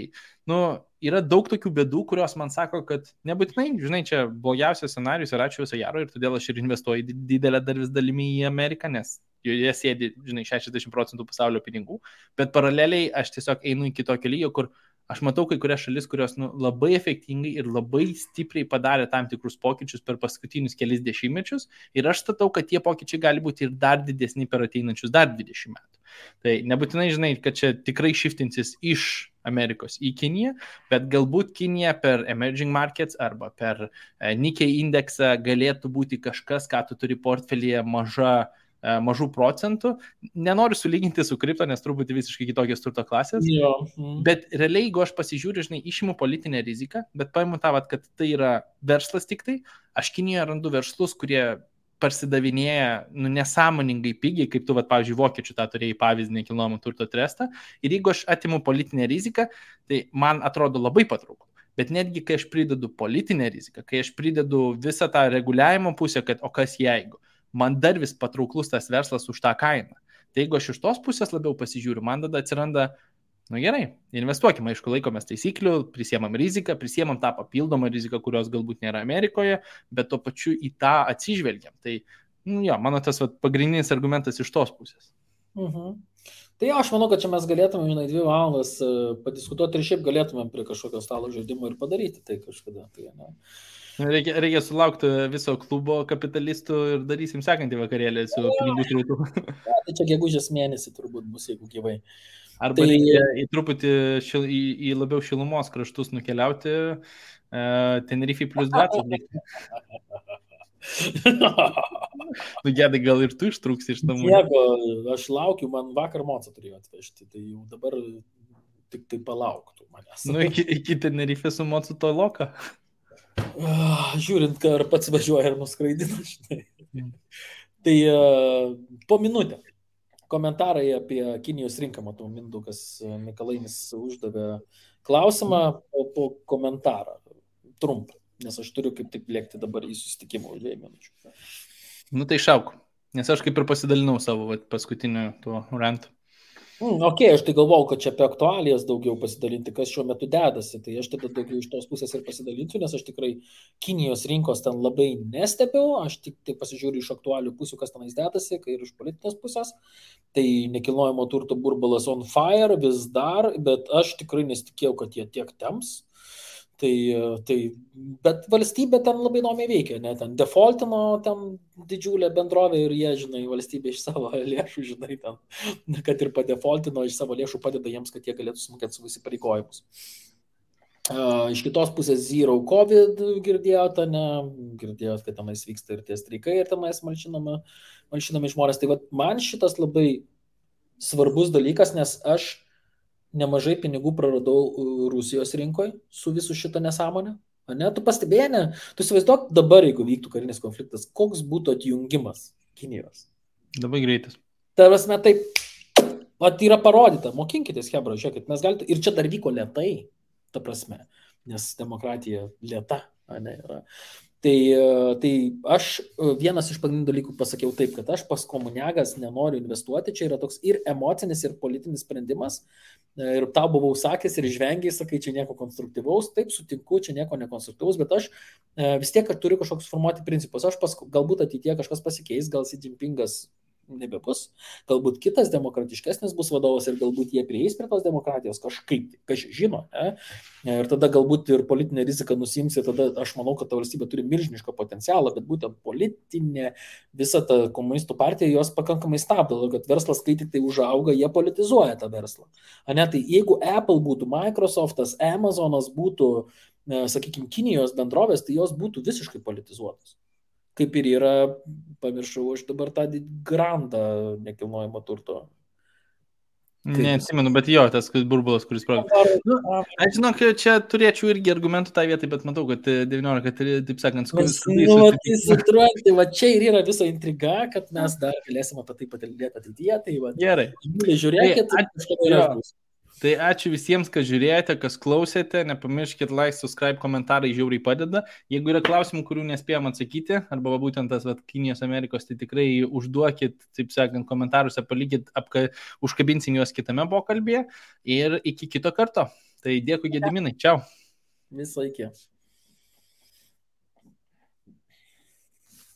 yra daug tokių bėdų, kurios man sako, kad nebūtinai, žinai, čia blogiausias scenarius ir ačiū viso gero ir todėl aš ir investuoju didelę dar vis dalimi į Ameriką, nes joje sėdi, žinai, 60% pasaulio pinigų, bet paraleliai aš tiesiog einu iki tokio lygio, kur aš matau kai kurias šalis, kurios labai efektingai ir labai stipriai padarė tam tikrus pokyčius per paskutinius kelis dešimtmečius ir aš statau, kad tie pokyčiai gali būti ir dar didesni per ateinančius dar 20 metų. Tai nebūtinai, žinai, kad čia tikrai shiftinsis iš Amerikos į Kiniją, bet galbūt Kinija per emerging markets arba per Nikkei indeksą galėtų būti kažkas, ką tu turi portfelyje mažų procentų. Nenoriu sulyginti su kripto, nes truputį visiškai kitokios turto klasės. Bet realiai, jeigu aš pasižiūriu, žinai, išimu politinę riziką, bet paimu tą, kad tai yra verslas tik tai, aš Kinijoje randu verslus, kurie parsidavinėja nesąmoningai pigiai, kaip tu, pavyzdžiui, vokiečių tą turėjai pavyzdį nekilnojamo turto trestą. Ir jeigu aš atimu politinę riziką, tai man atrodo labai patrauklu. Bet netgi, kai aš pridedu politinę riziką, kai aš pridedu visą tą reguliavimo pusę, kad o kas jeigu, man dar vis patrauklus tas verslas už tą kainą. Tai jeigu aš iš tos pusės labiau pasižiūriu, man tada atsiranda, gerai, investuokime, aišku, laikomės taisyklių, prisiemam riziką, prisiemam tą papildomą riziką, kurios galbūt nėra Amerikoje, bet tuo pačiu į tą atsižvelgiam. Tai, mano tas pagrindinis argumentas iš tos pusės. Tai aš manau, kad čia mes galėtume, 2 valandas padiskutuoti ir šiaip galėtumėm prie kažkokio stalo žaidimo ir padaryti tai kažkada. Tai, ne? Reikia sulaukti viso klubo kapitalistų ir darysim sekantį vakarėlį su pinigų srautu. Tai čia gegužės mėnesį turbūt bus, jeigu gyvai. Arba reikia į truputį į labiau šilumos kraštus nukeliauti, Tenerife plus 20. Gedai, gal ir tu ištrūksi iš namų. Jeigu aš laukiu, man vakar Mocą turėjo atvežti, tai jau dabar tik tai palauktų manęs. Iki Tenerife su Mocu to loka. Žiūrint, ar pats važiuoja ir nuskraidina, žinai. Tai po minutę komentarai apie Kinijos rinką, matau, Mindaugas Mikalainis uždavė klausimą po komentarą, trumpą, nes aš turiu kaip tik lėkti dabar į susitikimą už 2 minučių. Tai šauk, nes aš kaip ir pasidalinau savo paskutiniu tuo rantu. Ok, aš tai galvau, kad čia apie aktualijas daugiau pasidalinti, kas šiuo metu dedasi, tai aš tada daugiau iš tos pusės ir pasidalinsiu, nes aš tikrai Kinijos rinkos ten labai nestebiu, aš tik pasižiūriu iš aktualių pusių, kas tenais dedasi, kai ir iš politinės pusės, tai nekilnojamo turto burbulas on fire vis dar, bet aš tikrai nesitikėjau, kad jie tiek temps. Bet valstybė ten labai įdomiai veikia, ne, ten defaultino ten didžiulė bendrovė ir jie, žinai, valstybė iš savo lėšų, žinai, ten, kad ir padefaultino iš savo lėšų padeda jiems, kad jie galėtų sumokėti savo įsipareigojimus. Iš kitos pusės Zero COVID girdėjote, girdėjot, kad tenais vyksta ir tie streikai ir tenais malšinami žmonės. Tai man šitas labai svarbus dalykas, nes aš nemažai pinigų praradau Rusijos rinkoje su visu šitą nesąmonę. Ne? Tu pastebėjai, ne? Tu įsivaizduok dabar, jeigu vyktų karinis konfliktas, koks būtų atjungimas Kinijos. Labai greitas. Tai prasme, taip, yra parodyta, mokinkitės, hebra, žiūrėkit, mes galite, ir čia dar vyko lėtai, ta prasme, nes demokratija lėta, ne, yra. Tai aš vienas iš pagrindinių dalykų pasakiau taip, kad aš pas komuniagas nenoriu investuoti, čia yra toks ir emocinis, ir politinis sprendimas, ir tau buvau sakęs ir žvengiai, sakai, čia nieko konstruktyvaus, taip sutinku, čia nieko nekonstruktyvaus, bet aš vis tiek turiu kažkoks formuoti principus, galbūt ateityje kažkas pasikeis, gal Xi Jinpingas nebebus, galbūt kitas demokratiškesnis bus vadovas ir galbūt jie prieis prie tos demokratijos kažkaip, kas žino, ne? Ir tada galbūt ir politinė rizika nusims ir tada aš manau, kad ta valstybė turi milžinišką potencialą, bet būtent politinė visa ta komunistų partija jos pakankamai stabdo, kad verslas, kai tik tai užauga, jie politizuoja tą verslą. Ne? Tai jeigu Apple būtų, Microsoftas, Amazonas būtų, sakykime, Kinijos bendrovės, tai jos būtų visiškai politizuotos. Kaip ir yra, pamiršau, aš dabar tą grandą nekilnojamo turto. Neatsimenu, bet jo, tas burbulas, kuris aš žinau, kad čia turėčiau irgi argumentų tą vietą, bet matau, kad 19, taip sakant, tai va čia ir yra visa intriga, kad mes dar galėsime apie tai patalbėti ateityje. Tai va, gerai. Žiūrėkit, Tai ačiū visiems, kas žiūrėjote, kas klausėte, nepamirškit like, subscribe, komentarai žiauriai padeda. Jeigu yra klausimų, kurių nespėjom atsakyti, arba būtent tas Kinijos Amerikos, tai tikrai užduokit, taip sakant, komentaruose, palikit, užkabinsim juos kitame pokalbėje ir iki kito karto. Tai dėkui, Gediminai, čiau. Visą iki.